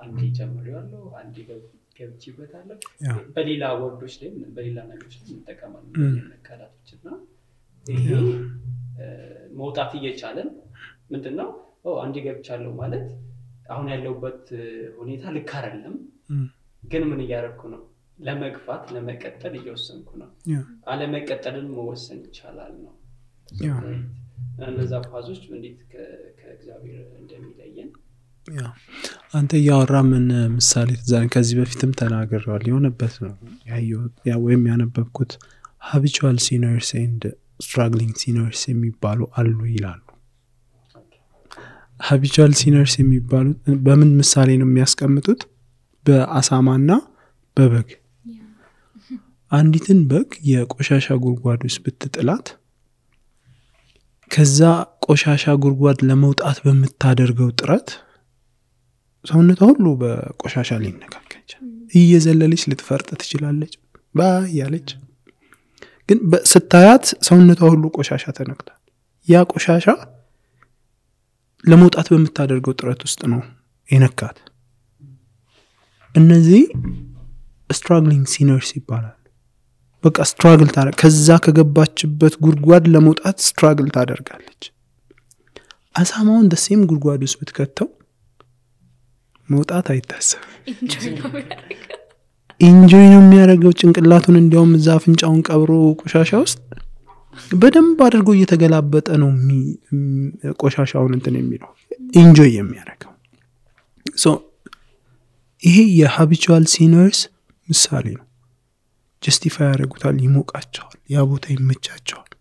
አንዴ ጀምሬዋለሁ አንዴ ገብቼበታለሁ በሌላ ወርዶች ላይ በሌላ ነገሮች ላይ እንጠቀማለን ቃላቶችና ይሄ መውጣት እየቻለን ምንድነው አንዴ ገብቻለሁ ማለት አሁን ያለውበት ሁኔታ ልክ አይደለም ግን ምን እያደረኩ ነው ለመግፋት ለመቀጠል እየወሰንኩ ነው አለ መቀጠልን መወሰን ይቻላል ነው እነዛ ፋዞች እንዴት ከእግዚአብሔር እንደሚለየን አንተ ያወራ ምን ምሳሌ ተዛን ከዚህ በፊትም ተናግረዋል የሆነበት ነው ያው ወይም ያነበብኩት habitual sinners and struggling sinners የሚባሉ አሉ ይላሉ habitual sinners የሚባሉ በምን ምሳሌ ነው የሚያስቀምጡት በአሳማና በበግ አንዲትን በግ የቆሻሻ ጉድጓድ ውስጥ ብትጥላት ከዛ ቆሻሻ ጉድጓድ ለመውጣት በመታደርገው ጥረት ሰውነቷ ሁሉ በቆሻሻ ሊነካከች እየዘለለች ልትፈርጥ ትችላለች ያለች ግን ስታያት ሰውነቷ ሁሉ ቆሻሻ ተነክቷል ያ ቆሻሻ ለመውጣት በመታደርገው ጥረት ውስጥ ነው የነካት እነዚህ struggling sinners ይባላል በቃ struggle ታደርጋለች ከዛ ከገባችበት ጉድጓድ ለመውጣት struggle ታደርጋለች አሳማውን ደሴም ጉድጓድ ውስጥ ብትከተው መውጣት አይታሰብ ኢንጆይ ነው የሚያደርገው ጭንቅላቱን እንዲያውም እዛ አፍንጫውን ቀብሮ ቆሻሻ ውስጥ በደንብ አድርጎ እየተገላበጠ ነው ቆሻሻውን እንትን የሚለው ኢንጆይ የሚያደርገው ሶ ይሄ የhabitual sinners ምሳሌ ነው justify ያደርጉታል ይሞቃቸዋል ያ ቦታ ይመቻቸዋል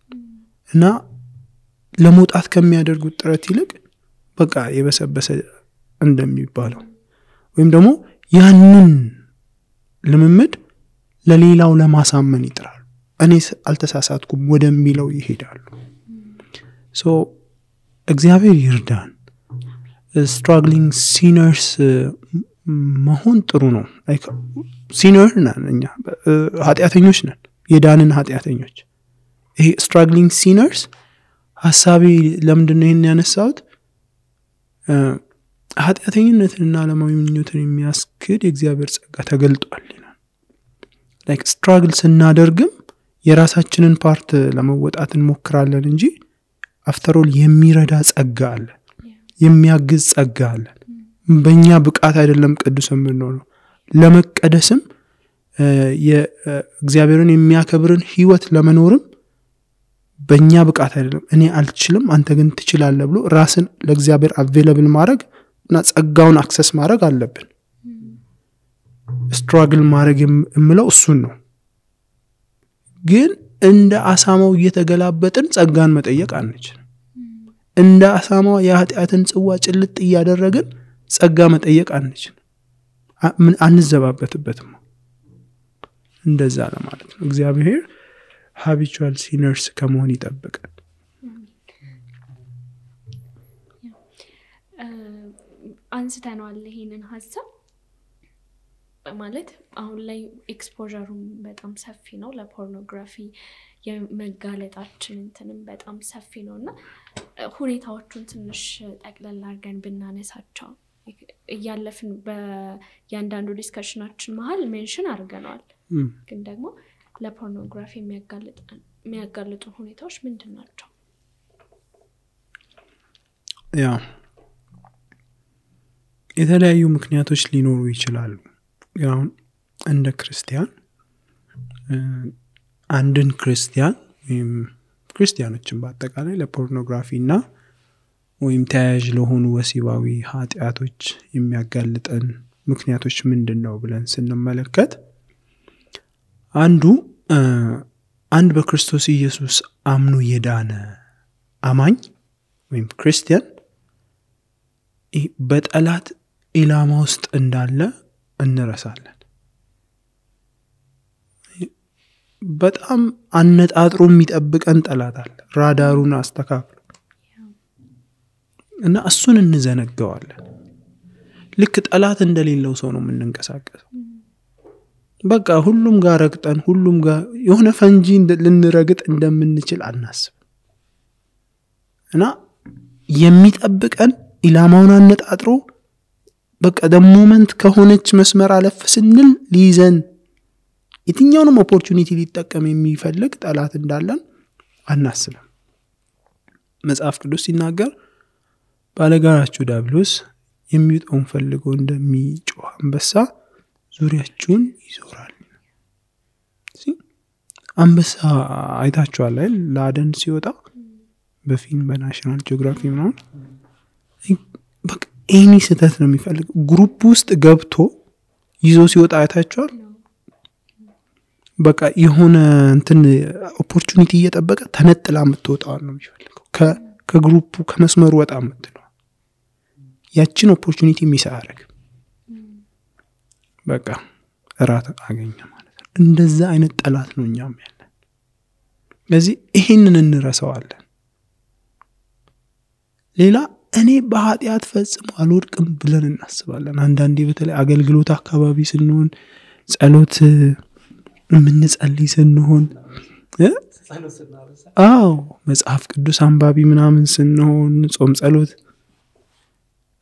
እና ለመውጣት ከሚያደርጉት ጥረት ይልቅ በቃ የበሰበሰ እንደሚባለው ወይም ደግሞ ያንን ልምምድ ለሌላው ለማሳመን ይጥራሉ እኔ አልተሳሳትኩም ወደሚለው ይሄዳሉ ሶ እግዚአብሔር ይርዳን struggling sinners መሆን ጥሩ ነው ሲነር ነን እኛ ኃጢአተኞች ነን የዳንን ኃጢአተኞች ይሄ struggling sinners ሐሳቤ ለምንድን ነው ይሄን ያነሳሁት ኃጢአተኝነትንና ዓለማዊ ምኞትን የሚያስክድ የእግዚአብሔር ጸጋ ተገልጧል ይላል like struggle ስናደርግም የራሳችንን ፓርት ለመወጣት እንሞክራለን እንጂ after all የሚረዳ ጸጋ አለ የሚያግዝ ጸጋ አለ በእኛ ብቃት አይደለም ቅዱስም ነው ለመቀደስም የእግዚአብሔርን የሚያከብርን ህይወት ለመኖርም በእኛ ብቃት አይደለም እኔ አልችልም አንተ ግን ትችላለህ ብሎ ራስን ለእግዚአብሔር available ማድረግ እና ጸጋውን አክሰስ ማድረግ አለብን struggle ማድረግ የምለው እሱን ነው ግን እንደ አሳማው እየተገላበጥን ጸጋን መጠየቅ አንችልም እንደ አሳማው የኃጢአትን ጽዋ ጭልጥ እያደረግን ጸጋ መጠየቅ አንችልም ምን አንዘባበትበትም እንደዛ ለማለት ነው እግዚአብሔር habitual sinners ከመሆን ይጠብቃል አንስተናል ይሄንን ሐሳብ ማለት አሁን ላይ ኤክስፖዠሩ በጣም ሰፊ ነው ለፖርኖግራፊ የመጋለጣችን እንትንም በጣም ሰፊ ነውና ሁኔታዎቹን ትንሽ ጠቅለል አድርገን ብናነሳቸው ያለፍን በያንዳንዱ ዲስከሽናችን መሃል ሜንሽን አድርገናል ግን ደግሞ ለፖርኖግራፊ የሚያጋልጡ ሁኔታዎች ምንድናቸው ያ የተለያዩ ምክንያቶች ሊኖሩ ይችላሉ ያው እንደ ክርስቲያን አንድን ክርስቲያን ወይም ክርስቲያኖችን በአጠቃላይ ለፖርኖግራፊና ወይም ተያያዥ ለሆኑ ወሲባዊ ኃጢአቶች የሚያጋልጠን ምክንያቶች ምንድነው ብለን ስንመለከት አንድ በክርስቶስ ኢየሱስ አምኖ የዳነ አማኝ ወይም ክርስቲያን በጠላት ኢላማ ውስጥ እንዳለ እንረሳለን በጣም አነጣጥሮ የሚጠብቀን ጠላት አለ ራዳሩን አስተካክሎ እና እሱን እንዘነጋዋለን ልክ ጠላት እንደሌለው ሰው ነው የምንንቀሳቀሰው በቃ ሁሉም ጋር ረግጠን ሁሉም ጋር የሆነ ፈንጂ ልንረግጥ እንደምንችል አናስብ እና የሚጠብቀን ኢላማውን አነጣጥሮ በቃ ደሞመንት ከሆነች መስመር አለፍ ስንል ሊይዘን የትኛውንም ኦፖርቹኒቲ ሊጠቀም የሚፈልግ ጠላት እንዳለን አናስብም። መጽሐፍ ቅዱስ ሲናገር ባለጋራችሁ ዲያብሎስ የሚውጠውን ፈልጎ እንደሚጮህ አንበሳ ዙሪያችሁን ይዞራል። አንበሳ አይታችኋል አይደል? ለአደን ሲወጣ በፊልም በናሽናል ጂኦግራፊ ምናምን በቃ ኤኒ ስህተት ነው የሚፈልግ። ግሩፕ ውስጥ ገብቶ ይዞ ሲወጣ አይታችኋል? በቃ የሆነ እንትን ኦፖርቹኒቲ እየጠበቀ ተነጥላ የምትወጣው ነው የሚፈልገው። ከግሩፑ ከመስመሩ ወጣ የምትለው ያችን ኦፖርቹኒቲ ሚስ አያደርግም። በቃ እራት አገኘ ማለት ነው። እንደዛ አይነት ጠላት ነው እኛም ያለን። ስለዚህ ይሄንን እንረሳዋለን። ሌላ እኔ በኃጢአት ፈጽሞ አልወድቅም ብለን እናስባለን። አንዳንዴ በተለይ አገልግሎት አካባቢ ስንሆን ጸሎት የምንጸልይ ስንሆን መጽሐፍ ቅዱስ አንባቢ ምናምን ስንሆን ጾም ጸሎት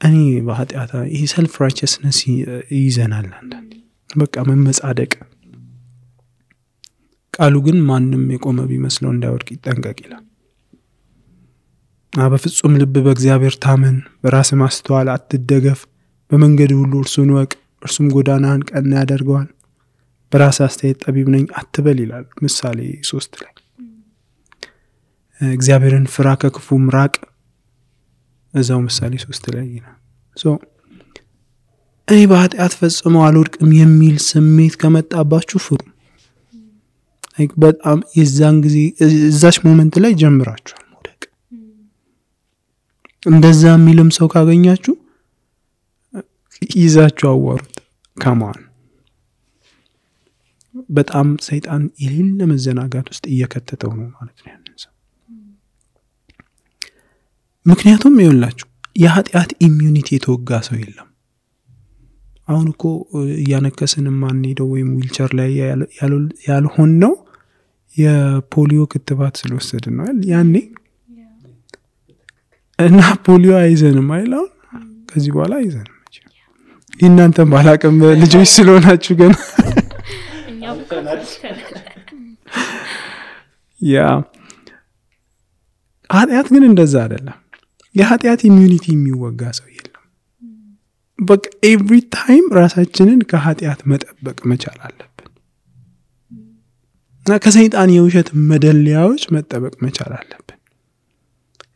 እኔ በኃጢአት ይሄ ሰልፍ ራይቸስነስ ይዘናል። አንዳንዴ በቃ መመጻደቅ። ቃሉ ግን ማንም የቆመ ቢመስለው እንዳይወድቅ ይጠንቀቅ ይላል። በፍጹም ልብ በእግዚአብሔር ታመን፣ በራስ ማስተዋል አትደገፍ፣ በመንገድ ሁሉ እርሱን ወቅ፣ እርሱም ጎዳናህን ቀና ያደርገዋል። በራስ አስተያየት ጠቢብ ነኝ አትበል ይላል ምሳሌ 3 ላይ። እግዚአብሔርን ፍራ ከክፉም ራቅ እዛው ምሳሌ 3 ላይ ይላል። እኔ በኃጢአት ፈጽሞ አልወድቅም የሚል ስሜት ከመጣባችሁ ፍሩ። በጣም የዛን ጊዜ እዛች ሞመንት ላይ ጀምራችኋል መውደቅ። እንደዛ የሚልም ሰው ካገኛችሁ ይዛችሁ አዋሩት። ከማን በጣም ሰይጣን የሌለ መዘናጋት ውስጥ እየከተተው ነው ማለት ነው ያንን ሰው። ምክንያቱም ይኸውላችሁ የኃጢአት ኢሚዩኒቲ የተወጋ ሰው የለም። አሁን እኮ እያነከስን ማን ሄደው ወይም ዊልቸር ላይ ያልሆን ነው የፖሊዮ ክትባት ስለወሰድን ነው ያኔ። እና ፖሊዮ አይዘንም አይላው ከዚህ በኋላ አይዘንም። እናንተም ባላቀም ልጆች ስለሆናችሁ ግን ኃጢአት ግን እንደዛ አይደለም። የኃጢአት ኢሚዩኒቲ የሚወጋ ሰው የለም። በቃ ኤቭሪ ታይም ራሳችንን ከኃጢአት መጠበቅ መቻል አለብን። እና ከሰይጣን የውሸት መደለያዎች መጠበቅ መቻል አለብን።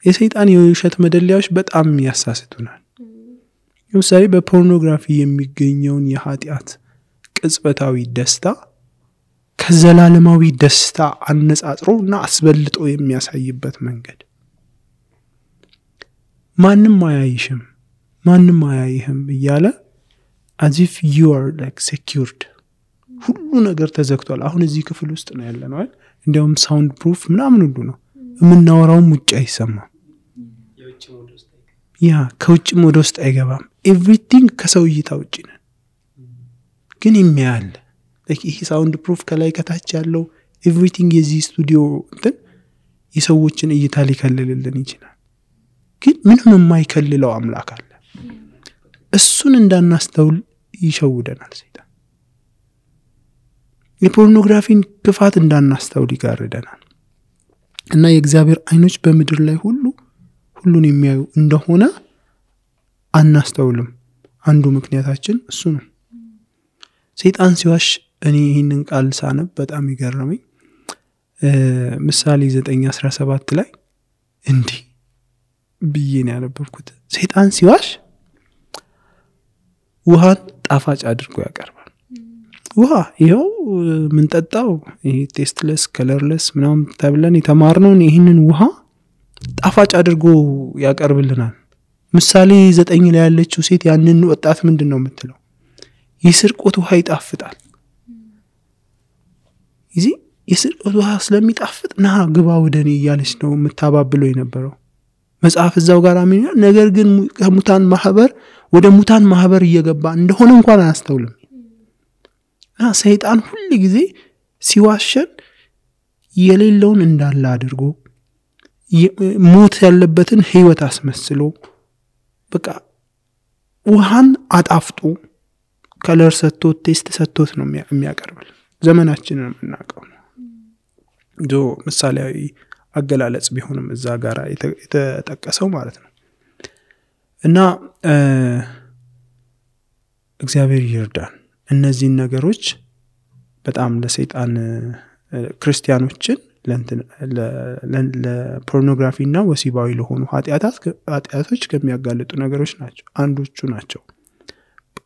የሰይጣን የውሸት መደለያዎች በጣም ያሳስቱናል። ለምሳሌ በፖርኖግራፊ የሚገኘውን የኃጢአት ቅጽበታዊ ደስታ ከዘላለማዊ ደስታ አነጻጽሮና አስበልጦ የሚያሳይበት መንገድ ማንም አያይሽም ማንም አያይህም እያለ as if you are like secured ሁሉ ነገር ተዘግቷል። አሁን እዚህ ክፍል ውስጥ ነው ያለነው አይደል? እንዲያውም ሳውንድ ፕሩፍ ምናምን ሁሉ ነው የምናወራውም ውጭ አይሰማም። ከውጭም ወደ ውስጥ አይገባም። ኤቭሪቲንግ ከሰው እይታ ውጭ ነን። ግን የሚያል ይሄ ሳውንድ ፕሩፍ ከላይ ከታች ያለው ኤቭሪቲንግ የዚህ ስቱዲዮ እንትን የሰዎችን እይታ ሊከልልልን ይችላል። ግን ምንም የማይከልለው አምላክ አለ። እሱን እንዳናስተውል ይሸውደናል ሰይጣን። የፖርኖግራፊን ክፋት እንዳናስተውል ይጋርደናል። እና የእግዚአብሔር አይኖች በምድር ላይ ሁሉን የሚያዩ እንደሆነ አናስተውልም። አንዱ ምክንያታችን እሱ ነው። ሰይጣን ሲዋሽ እኔ ይህንን ቃል ሳነብ በጣም ይገርመኝ። ምሳሌ 9:17 ላይ እንዲህ ብዬ ነው ያነበብኩት። ሰይጣን ሲዋሽ ውሃን ጣፋጭ አድርጎ ያቀርባል። ውሃ ይኸው ምን ጠጣው ይሄ ቴስትለስ ከለርለስ ምናምን ተብለን የተማርነውን ይህንን ውሃ ጣፋጭ አድርጎ ያቀርብልናል። ምሳሌ 9 ላይ ያለችው ሴት ያንን ወጣት ምንድነው የምትለው? የስርቆት ውሃ ይጣፍጣል። እዚህ የስርቆት ውሃ ስለሚጣፍጥ ና ግባ ወደኔ እያለች ነው የምታባብለው የነበረው። መጽሐፍ እዛው ጋር አሚና ነገር ግን ከሙታን ማህበር ወደ ሙታን ማህበር እየገባ እንደሆነ እንኳን አያስተውልም። እና ሰይጣን ሁሉ ጊዜ ሲዋሸን የሌለውን እንዳለ አድርጎ ሞት ያለበትን ህይወት አስመስሎ በቃ ውሃን አጣፍጡ ከለር ሰጥቶት ቴስት ሰጥቶት ነው የሚያቀርብል። ዘመናችንን የምናውቀው ነው ዶ ምሳሌያዊ አገላለጽ ቢሆንም እዛ ጋር የተጠቀሰው ማለት ነው። እና እግዚአብሔር ይርዳን እነዚህን ነገሮች በጣም ለሰይጣን ክርስቲያኖችን ለፖርኖግራፊና ወሲባዊ ለሆኑ ኃጢአቶች ከሚያጋልጡ ነገሮች ናቸው አንዶቹ ናቸው።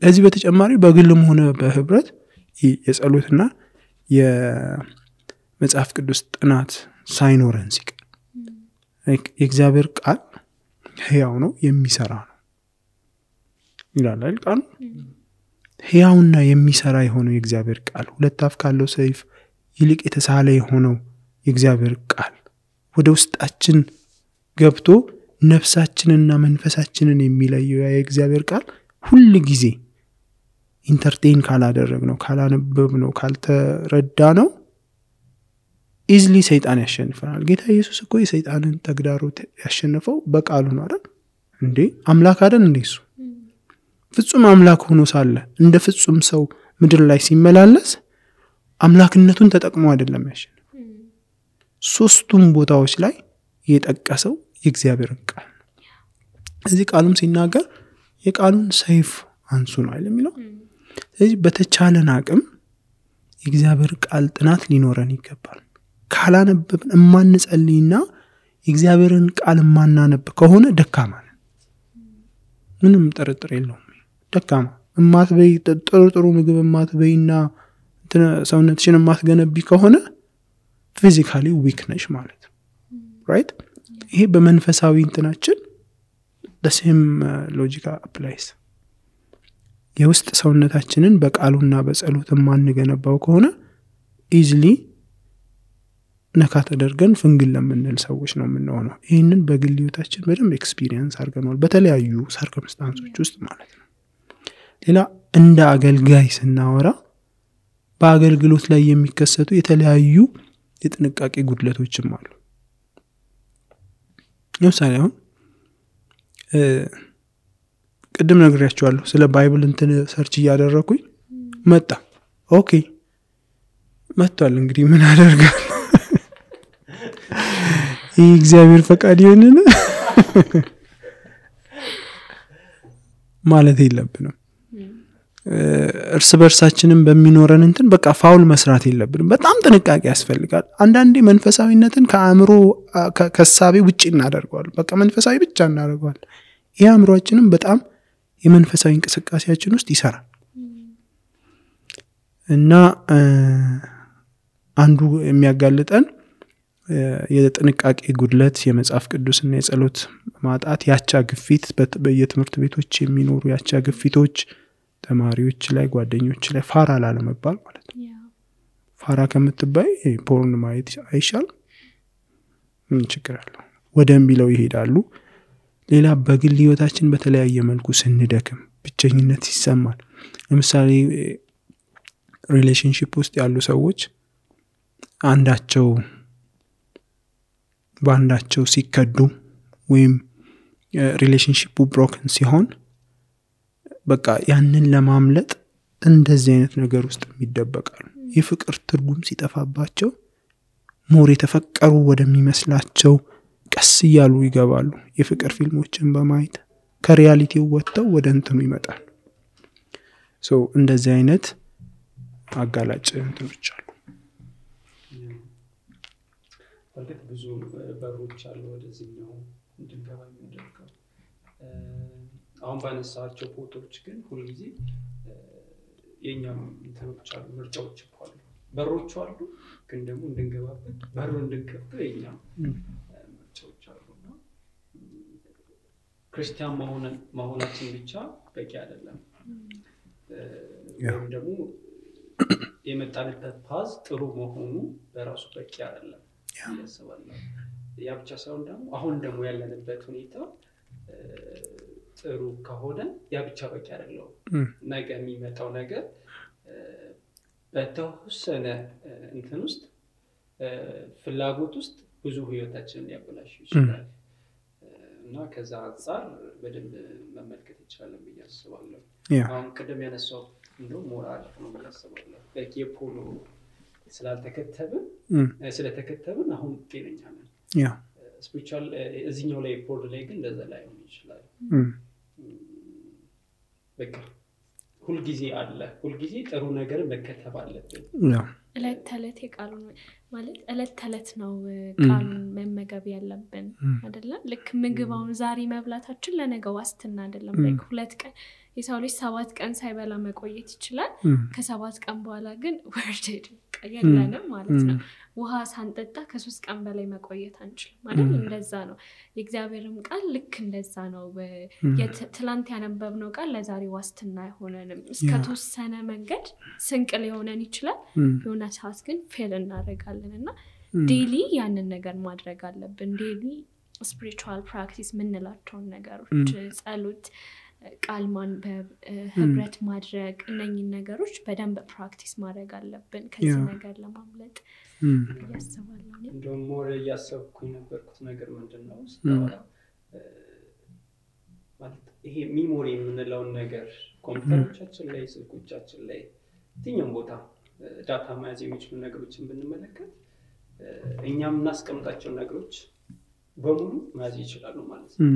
ከዚህ በተጨማሪ በግልም ሆነ በህብረት የጸሎትና የመጽሐፍ ቅዱስ ጥናት ሳይኖረን ሲቀር የእግዚአብሔር ቃል ሕያው ነው የሚሰራ ነው ይላል አይደል? ቃል ሕያውና የሚሰራ የሆነው የእግዚአብሔር ቃል ሁለት አፍ ካለው ሰይፍ ይልቅ የተሳለ የሆነው የእግዚአብሔር ቃል ወደ ውስጣችን ገብቶ ነፍሳችንና መንፈሳችንን የሚለየው የእግዚአብሔር ቃል ሁሉ ጊዜ ኢንተርቴይን ካላደረግነው ካላነበብነው ካልተረዳነው ኢዝሊ ሰይጣን ያሸንፈናል። ጌታ ኢየሱስ እኮ የሰይጣንን ተግዳሮት ያሸነፈው በቃሉ ነው አይደል እንዴ? አምላክ አይደል እንዴ? እሱ ፍጹም አምላክ ሆኖ ሳለ እንደ ፍጹም ሰው ምድር ላይ ሲመላለስ አምላክነቱን ተጠቅሞ አይደለም ያሸነፈው። ሶስቱም ቦታዎች ላይ የጠቀሰው የእግዚአብሔርን ቃል እዚህ ቃሉም ሲናገር የቃሉን ሰይፍ አንሱ ነው አይደል የሚለው። ስለዚህ በተቻለን አቅም የእግዚአብሔር ቃል ጥናት ሊኖረን ይገባል። ካላነበብን እማንጸልይና የእግዚአብሔርን ቃል ማናነብ ከሆነ ደካማ ነን። ምንም ጥርጥር የለውም። ደካማ እማትበይ ጥሩ ምግብ እማትበይና ሰውነትሽን እማትገነቢ ከሆነ ፊዚካሊ ዊክ ነሽ ማለት ነው። ራይት? ይሄ በመንፈሳዊ እንትናችን the same logic applies። የውስጥ ሰውነታችንን በቃሉና በጸሎት ማንገነባው ከሆነ ኢዝሊ ነካ ተደርገን ፍንግል ለምንል ሰዎች ነው የምንሆነው። ይሄንን በግል ህይወታችን በደንብ ኤክስፒሪየንስ አድርገናል በተለያዩ ሰርከምስታንሶች ውስጥ ማለት ነው። ሌላ እንደ አገልጋይ ስናወራ በአገልግሎት ላይ የሚከሰቱ የተለያዩ የጥንቃቄ ጉድለቶችም አሉ። ለምሳሌ አሁን ቅድም ነግሬያችኋለሁ ስለ ባይብል እንትን ሰርች እያደረኩኝ መጣ። ኦኬ መጥቷል። እንግዲህ ምን አደርጋለሁ? ይህ እግዚአብሔር ፈቃድ ይሆንና ማለት የለብንም። እርስ በርሳችንን በሚኖረን እንትን በቃ ፋውል መስራት የለብንም። በጣም ጥንቃቄ ያስፈልጋል። አንዳንዴ መንፈሳዊነትን ከአእምሮ ከሳቤ ውጪ እናደርገዋለን። በቃ መንፈሳዊ ብቻ እናደርገዋለን። ይሄ አእምሮአችንን በጣም የመንፈሳዊ እንቅስቃሴያችን ውስጥ ይሰራል እና አንዱ የሚያጋልጠን የጥንቃቄ ጉድለት የመጽሐፍ ቅዱስና የጸሎት ማጣት፣ ያቻ ግፊት፣ በየትምህርት ቤቶች የሚኖሩ ያቻ ግፊቶች ተማሪዎች ላይ ጓደኞች ላይ ፋራ ላለመባል ማለት ነው። ፋራ ከምትባይ ፖርን ማየት አይሻል? ምን ችግር አለው? ወደም ቢለው ይሄዳሉ። ሌላ በግል ህይወታችን በተለያየ መልኩ ስንደክም ብቸኝነት ይሰማል። ለምሳሌ ሪሌሽንሺፕ ውስጥ ያሉ ሰዎች በአንዳቸው ሲከዱ ወይም ሪሌሽንሺፑ ብሮከን ሲሆን በቃ ያንን ለማምለጥ እንደዚህ አይነት ነገር ውስጥ የሚደበቃሉ። የፍቅር ትርጉም ሲጠፋባቸው ሞር የተፈቀሩ ወደሚመስላቸው ቀስ እያሉ ይገባሉ። የፍቅር ፊልሞችን በማየት ከሪያሊቲው ወጥተው ወደ እንትኑ ይመጣሉ። እንደዚህ አይነት አጋላጭ እንትኖች አሉ። ማለት ብዙ በሮች አሉ ወደዚህኛው እንድንገባ የሚያደርገው። አሁን ባነሳቸው ፎቶዎች ግን ሁልጊዜ የኛም እንትኖች አሉ፣ ምርጫዎች አሉ፣ በሮች አሉ። ግን ደግሞ እንድንገባበት በሩ እንድንከፍተው የኛም ምርጫዎች አሉና ክርስቲያን መሆናችን ብቻ በቂ አይደለም። ወይም ደግሞ የመጣንበት ፓዝ ጥሩ መሆኑ በራሱ በቂ አይደለም ያስባለሁ። ያ ብቻ ሳይሆን ደግሞ አሁን ደግሞ ያለንበት ሁኔታ ጥሩ ከሆነ ያ ብቻ በቂ አይደለም። ነገ የሚመጣው ነገር በተወሰነ እንትን ውስጥ ፍላጎት ውስጥ ብዙ ህይወታችንን ሊያበላሽ ይችላል እና ከዛ አንፃር በደንብ መመልከት ይችላል ብዬ አስባለሁ። አሁን ቀደም ያነሳው እንደው ሞራል ነው ብዬ አስባለሁ። የፖሎ ስለተከተብን አሁን ጤነኛ ነን። ስፒሪቹዋል እዚህኛው ላይ ፖል ላይ ግን እንደዛ ላይ ሆነ ይችላል። በቃ ሁሉ ጊዜ አለ ሁሉ ጊዜ ጥሩ ነገር መከተብ አለብን። እለት ተለት የቃሉ ማለት እለት ተለት ነው ቃሉን መመገብ ያለብን አይደለ? ልክ ምግባውን ዛሬ መብላታችን ለነገ ዋስትና አይደለም። ላይክ 2 ቀን የሰው ልጅ 7 ቀን ሳይበላ መቆየት ይችላል። ከ7 ቀን በኋላ ግን ወርደድ ቀየለንም ማለት ነው። ውሃ ሳንጠጣ ከ3 ቀን በላይ መቆየት አንችልም ማለት እንደዛ ነው። የእግዚአብሔርም ቃል ልክ እንደዛ ነው። ትላንት ያነበብነው ቃል ለዛሬ ዋስትና አይሆነንም። እስከ ተወሰነ መንገድ ስንቅ ሊሆነን ይችላል። የሆነ ሰዓት ግን ፌል እናደርጋለንና ዴሊ ያንን ነገር ማድረግ አለብን። ዴሊ ስፒሪቹዋል ፕራክቲስ ምንላቸው ነገሮች ጸሎት ቃል ማንበብ ህብረት ማድረግ እነኚህ ነገሮች በደንብ ፕራክቲስ ማድረግ አለብን ከዚህ ነገር ለማምለጥ ያስባለሁ። እንደውም ሞር ያሰብኩኝ ነበርኩት ነገር ምንድነው ማለት ይሄ ሚሞሪ የምንለውን ነገር ኮምፒውተሮቻችን ላይ ስልኮቻችን ላይ የትኛውም ቦታ ዳታ መያዝ የሚችሉ ነገሮችን ብንመለከት እኛም እናስቀምጣቸው ነገሮች በሙሉ መያዝ ይችላሉ ማለት ነው።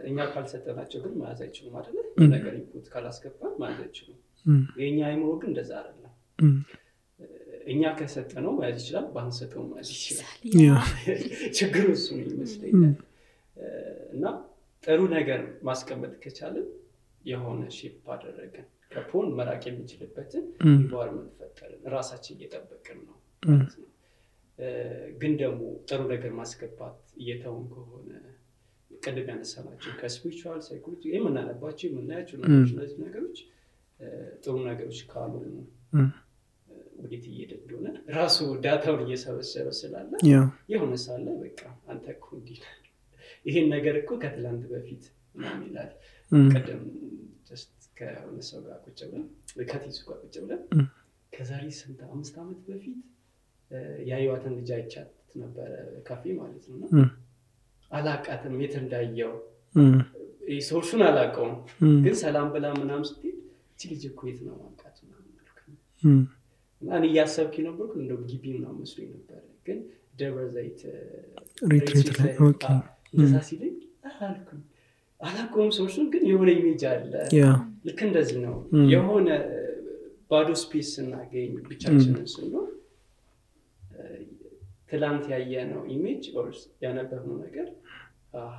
እኛ ካልሰጠናቸው ግን መያዝ አይችሉም አይደል? ነገር ኢንፑት ካላስገባን መያዝ አይችሉም። የኛ አይምሮ ግን እንደዛ አይደለም። እኛ ከሰጠነው መያዝ ይችላል፣ ባንሰጠው መያዝ ይችላል። ችግሩ እሱ ነው ይመስለኛል። እና ጥሩ ነገር ማስቀመጥ ከቻልን የሆነ ሼፕ አደረገን ከፖን መራቅ የሚችልበትን ኢንቫይሮንመንት ፈጠርን፣ ራሳችን እየጠበቅን ነው ማለት ነው። ግን ደግሞ ጥሩ ነገር ማስገባት እየተውን ከሆነ ቀደም ያነሳናቸው ከስፒሪቹዋል ሳይኮሎጂ የምናነባቸው የምናያቸው እነዚህ ነገሮች ጥሩ ነገሮች ካሉ ወዴት እየሄደ እንደሆነ ራሱ ዳታውን እየሰበሰበ ስላለ የሆነ ሳለ በቃ አንተ እኮ እንዲህ ይሄን ነገር እኮ ከትላንት በፊት ምናምን ይላል። ቀደም just ከሆነ ሰው ጋር ቁጭ ብለን ከቲሱ ጋር ቁጭ ብለን ከዛሬ 5 ዓመት በፊት ያዩዋትን ልጅ አይቻት ነበር ካፌ ማለት ነው። አላቃተም የት እንዳየው ሶርሱን አላቀውም፣ ግን ሰላም ብላ ምናምን ስትል እቺ ልጅ እኮ የት ነው ማንቃት ምናምን አልኩኝ። እና እኔ ያሰብኩ ነበርኩ እንደው ግቢ ምናምን መስሎኝ ነበር፣ ግን ደብረ ዘይት ሪትሪት ላይ ኦኬ እንደዛ ሲለኝ አልኩኝ አላቀውም ሶርሱን፣ ግን የሆነ ኢሜጅ አለ። ልክ እንደዚህ ነው የሆነ ባዶ ስፔስ እናገኝ ብቻችንን ስንኖር ትላንት ያየነው ኢሜጅ ኦርስ ያነበብነው ነገር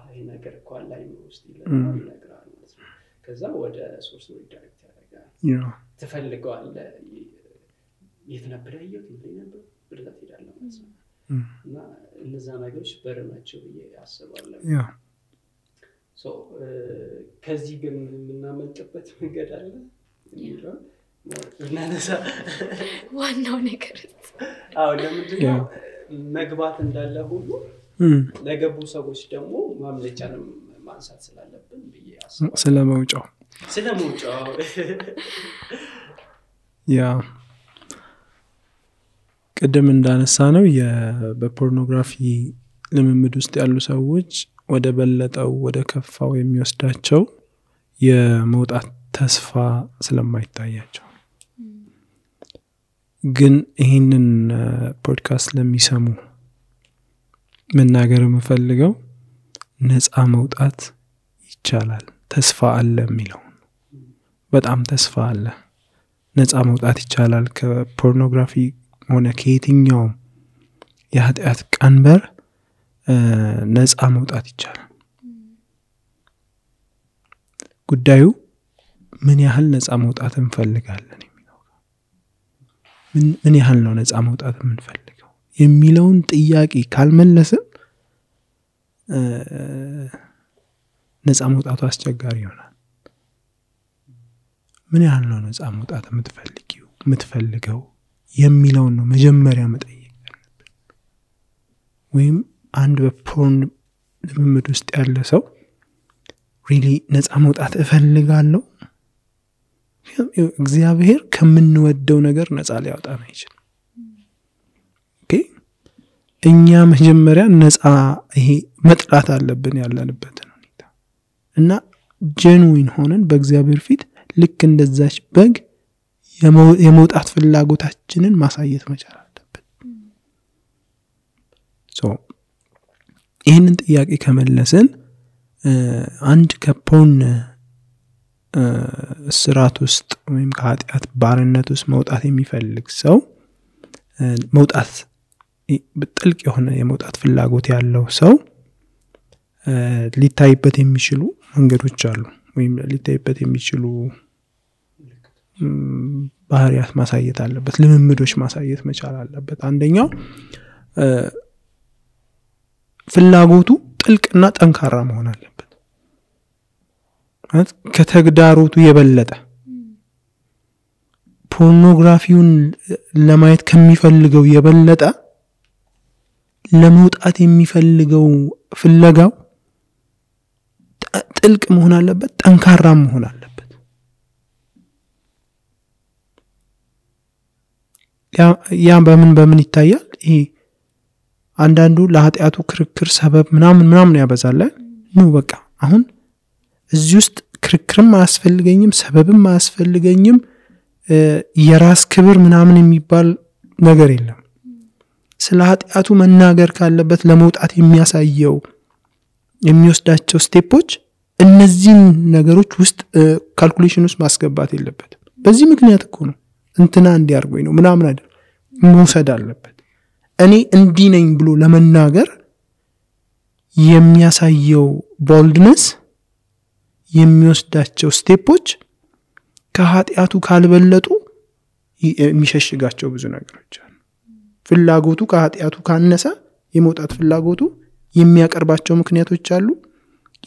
ይሄ ነገር እኮ ላይ ነው ውስጥ ይላል ይነግራል ማለት ነው። ከዛ ወደ ሶርስ ዳይሬክት ያደርጋል። ትፈልገዋለህ የት ነበር ያየው ምን ነበር ብለህ ትሄዳለህ ማለት ነው። እና እነዛ ነገሮች በረናቸው ያስባለሁ። ከዚህ ግን የምናመልጥበት መንገድ አለ ይላል እናነሳ ዋናው ነገር ለምንድነው መግባት እንዳለ ሁሉ ለገቡ ሰዎች ደግሞ ማምለጫንም ማንሳት ስላለብን ብዬ አስባለሁ። ስለመውጫው ቅድም እንዳነሳ ነው በፖርኖግራፊ ልምምድ ውስጥ ያሉ ሰዎች ወደ በለጠው ወደ ከፋው የሚወስዳቸው የመውጣት ተስፋ ስለማይታያቸው፣ ግን ይሄንን ፖድካስት ለሚሰሙ መናገር የምፈልገው ነፃ መውጣት ይቻላል፣ ተስፋ አለ የሚለው በጣም ተስፋ አለ። ነፃ መውጣት ይቻላል ከፖርኖግራፊ ሆነ ከየትኛው የኃጢአት ቀንበር ነፃ መውጣት ይቻላል። ጉዳዩ ምን ያህል ነፃ መውጣት እንፈልጋለን የሚለው ምን ያህል ነው ነፃ መውጣት የምንፈልገው የሚለውን ጥያቄ ካልመለስን ነፃ መውጣቱ አስቸጋሪ ይሆናል። ምን ያህል ነው ነፃ መውጣት የምትፈልገው የሚለውን ነው መጀመሪያ መጠየቅ ያለብን። ወይም አንድ በፖርን ልምምድ ውስጥ ያለ ሰው ሪሊ ነፃ መውጣት እፈልጋለሁ፣ እግዚአብሔር ከምንወደው ነገር ነፃ ሊያወጣን አይችልም። ኦኬ እኛ መጀመሪያ ነፃ ይሄ መጥላት አለብን ያለንበትን ሁኔታ እና ጄኑዊን ሆነን በእግዚአብሔር ፊት ልክ እንደዛች በግ የመውጣት ፍላጎታችንን ማሳየት መቻል አለብን። ይህንን ጥያቄ ከመለስን አንድ ከፖርን ስራት ውስጥ ወይም ከኃጢአት ባርነት ውስጥ መውጣት የሚፈልግ ሰው መውጣት በጥልቅ የሆነ የመውጣት ፍላጎት ያለው ሰው ሊታይበት የሚችሉ መንገዶች አሉ ወይም ሊታይበት የሚችሉ ባህሪያት ማሳየት አለበት፣ ልምምዶች ማሳየት መቻል አለበት። አንደኛው ፍላጎቱ ጥልቅና ጠንካራ መሆን አለበት። ከተግዳሮቱ የበለጠ ፖርኖግራፊውን ለማየት ከሚፈልገው የበለጠ ለመውጣት የሚፈልገው ፍለጋው ጥልቅ መሆን አለበት፣ ጠንካራ መሆን አለበት። ያ በምን ይታያል? ይሄ አንዳንዱ ለኃጢአቱ ክርክር ሰበብ ምናምን ያበዛል። ነው በቃ አሁን እዚህ ውስጥ ክርክርም አያስፈልገኝም፣ ሰበብም አያስፈልገኝም፣ የራስ ክብር ምናምን የሚባል ነገር የለም። ስለ ኃጢአቱ መናገር ካለበት ለመውጣት የሚያሳየው የሚወስዳቸው ስቴፖች እነዚህን ነገሮች ውስጥ ካልኩሌሽን ውስጥ ማስገባት የለበትም። በዚህ ምክንያት እኮ ነው እንትና እንዲያርጎኝ ነው ምናምን አይደል መውሰድ አለበት። እኔ እንዲህ ነኝ ብሎ ለመናገር የሚያሳየው ቦልድነስ የሚወስዳቸው ስቴፖች ከኃጢአቱ ካልበለጡ የሚሸሽጋቸው ብዙ ነገሮች አሉ። ፍላጎቱ ከኃጢአቱ ካነሰ የመውጣት ፍላጎቱ የሚያቀርባቸው ምክንያቶች አሉ፣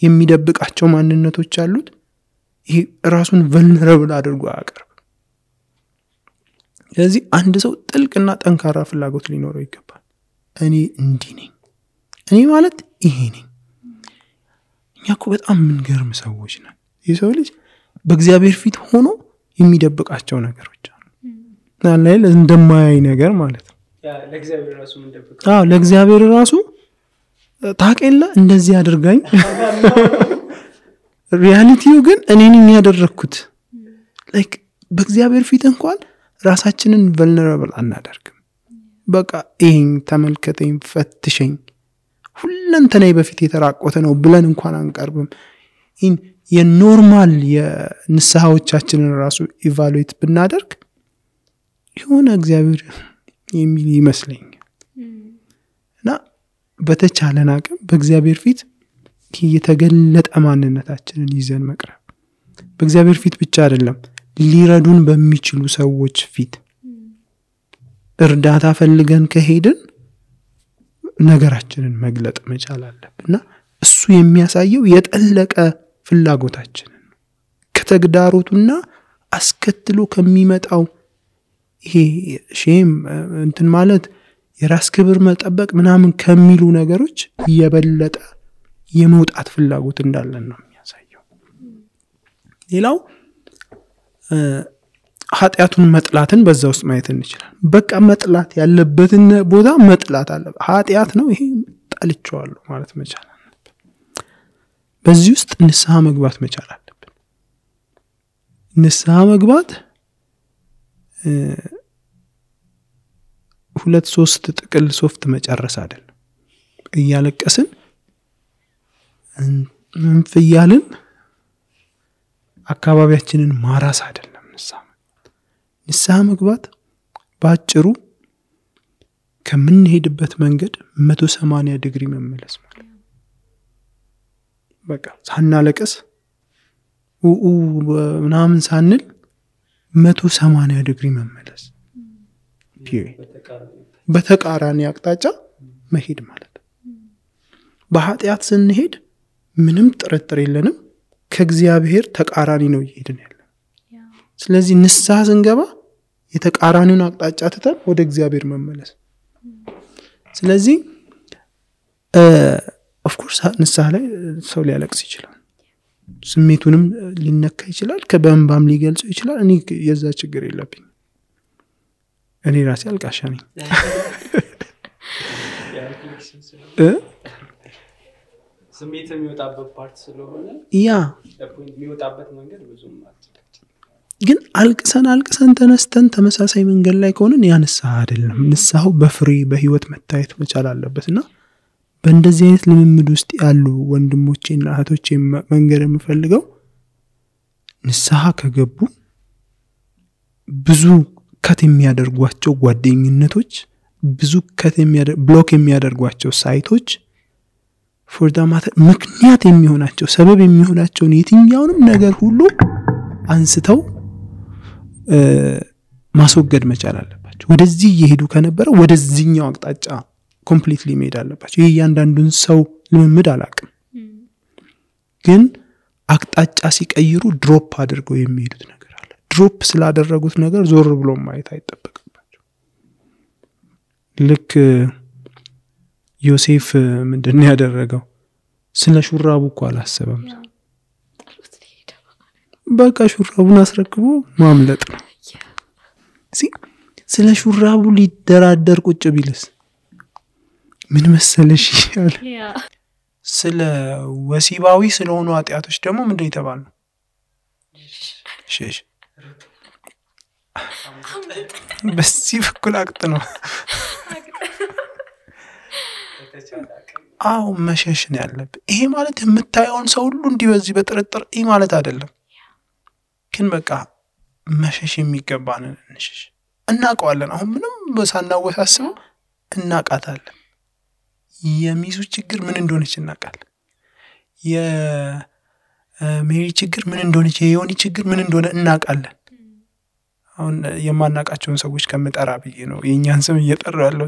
የሚደብቃቸው ማንነቶች አሉት። ይሄ ራሱን vulnerable አድርጎ አያቀርብ። ስለዚህ አንድ ሰው ጥልቅና ጠንካራ ፍላጎት ሊኖረው ይገባል። እኔ እንዲህ ነኝ፣ እኔ ማለት ይሄ ነኝ። እኛ እኮ በጣም የምንገርም ሰዎች ነን። የሰው ልጅ በእግዚአብሔር ፊት ሆኖ የሚደብቃቸው ነገሮች አሉ። ላይ እንደማያይ ነገር ማለት ነው። ለእግዚአብሔር ራሱ እንደብቀው ለእግዚአብሔር ራሱ ታቀለ እንደዚህ አድርጋኝ ሪያሊቲው ግን እኔን ያደረኩት ላይክ በእግዚአብሔር ፊት እንኳን ራሳችንን vulnerable አናደርግም። በቃ ይሄን ተመልከተኝ፣ ፈትሸኝ፣ ሁለንተናይ በፊት የተራቆተ ነው ብለን እንኳን አንቀርብም። የኖርማል የንስሐዎቻችንን ራሱ ኢቫሉዌት ብናደርግ የሆነ እግዚአብሔር የሚል ይመስለኛል። እና በተቻለን አቅም በእግዚአብሔር ፊት የተገለጠ ማንነታችንን ይዘን መቅረብ፣ በእግዚአብሔር ፊት ብቻ አይደለም ሊረዱን በሚችሉ ሰዎች ፊት እርዳታ ፈልገን ከሄድን ነገራችንን መግለጥ መቻል አለብንና እሱ የሚያሳየው የጠለቀ ፍላጎታችንን ከተግዳሮቱና አስከትሎ ከሚመጣው ይሄ ሼም እንትን ማለት የራስ ክብር መጠበቅ ምናምን ከሚሉ ነገሮች የበለጠ የመውጣት ፍላጎት እንዳለን ነው የሚያሳየው። ሌላው ኃጢአቱን መጥላትን በዛ ውስጥ ማየት እንችላለን። በቃ መጥላት ያለበትን ቦታ መጥላት አለ። ኃጢአት ነው ይሄ ጠልቼዋለሁ ማለት መቻል አለብን። በዚህ ውስጥ ንስሐ መግባት መቻል አለብን። ንስሐ መግባት 2-3 ጥቅል ሶፍት መጨረስ አይደለም። እያለቀስን እንፍያልን አካባቢያችንን ማራስ አይደለም። ንስሐ መግባት ባጭሩ ከምንሄድበት መንገድ 180 ዲግሪ መመለስ ማለት በቃ ሳናለቅስ ምናምን ሳንል 180 ዲግሪ መመለስ በተቃራኒ አቅጣጫ መሄድ ማለት ነው። በኃጢአት ስንሄድ ምንም ጥርጥር የለንም ከእግዚአብሔር ተቃራኒ ነው እየሄድን ያለ። ስለዚህ ንስሐ ስንገባ የተቃራኒውን አቅጣጫ ትተን ወደ እግዚአብሔር መመለስ። ስለዚህ ኦፍ ኮርስ ንስሐ ላይ ሰው ሊያለቅስ ይችላል፣ ስሜቱንም ሊነካ ይችላል፣ ከበእንባም ሊገልጸው ይችላል። እኔ የዛ ችግር የለብኝም። እኔ ራሴ አልቃሻ ነኝ። ስሜት የሚወጣበት ፓርት ስለሆነ ያ የሚወጣበት መንገድ ብዙም ግን አልቅሰን ተነስተን ተመሳሳይ መንገድ ላይ ከሆነን ያ ንስሐ አይደለም። ንስሐው በፍሬ በህይወት መታየት መቻል አለበትና በእንደዚህ አይነት ልምምድ ውስጥ ያሉ ወንድሞቼና እህቶቼ መንገር የምፈልገው ንስሐ ከገቡ ብዙ ከት የሚያደርጓቸው ጓደኝነቶች፣ ብዙ ብሎክ የሚያደርጓቸው ሳይቶች for the matter ምክንያት የሚሆናቸው ሰበብ የሚሆናቸውን የትኛውንም ነገር ሁሉ አንስተው ማስወገድ መቻል አለባቸው። ወደዚህ እየሄዱ ከነበረ ወደዚህኛው አቅጣጫ ኮምፕሊትሊ መሄድ አለባቸው። ይሄ ያንዳንዱን ሰው ልምምድ አላቅም፣ ግን አቅጣጫ ሲቀይሩ ድሮፕ አድርገው የሚሄዱት ነገር አለ። ድሮፕ ስላደረጉት ነገር ዞር ብሎ ማየት አይጠበቅባቸው። ልክ ዮሴፍ ምንድነው ያደረገው? ስለ ሹራቡ እኮ አላሰበም። በቃ ሹራቡን አስረክቦ ማምለጥ ነው። ስለ ሹራቡ ሊደራደር ቁጭ ቢልስ ምን መሰለሽ ይላል። ስለ ወሲባዊ ስለሆኑ ኃጢያቶች ደግሞ ምንድነው የተባለው? ሸሽ በዚህ በኩል አቅጥ ነው። አው መሸሽ ነው ያለበት። ይሄ ማለት የምታየውን ሰው ሁሉ እንዲህ በዚህ በጥርጥር ይሄ ማለት አይደለም፣ ግን በቃ መሸሽ የሚገባን እንሽሽ። እናውቀዋለን። አሁን ምንም ሳናወሳስበው እናውቃታለን። የሚሱ ችግር ምን እንደሆነች እናውቃለን። የሜሪ ችግር ምን እንደሆነች፣ የዮኒ ችግር ምን እንደሆነ እናውቃለን። አሁን የማናውቃቸውን ሰዎች ከመጠራ ብዬ ነው የኛን ስም እየጠራው ያለው።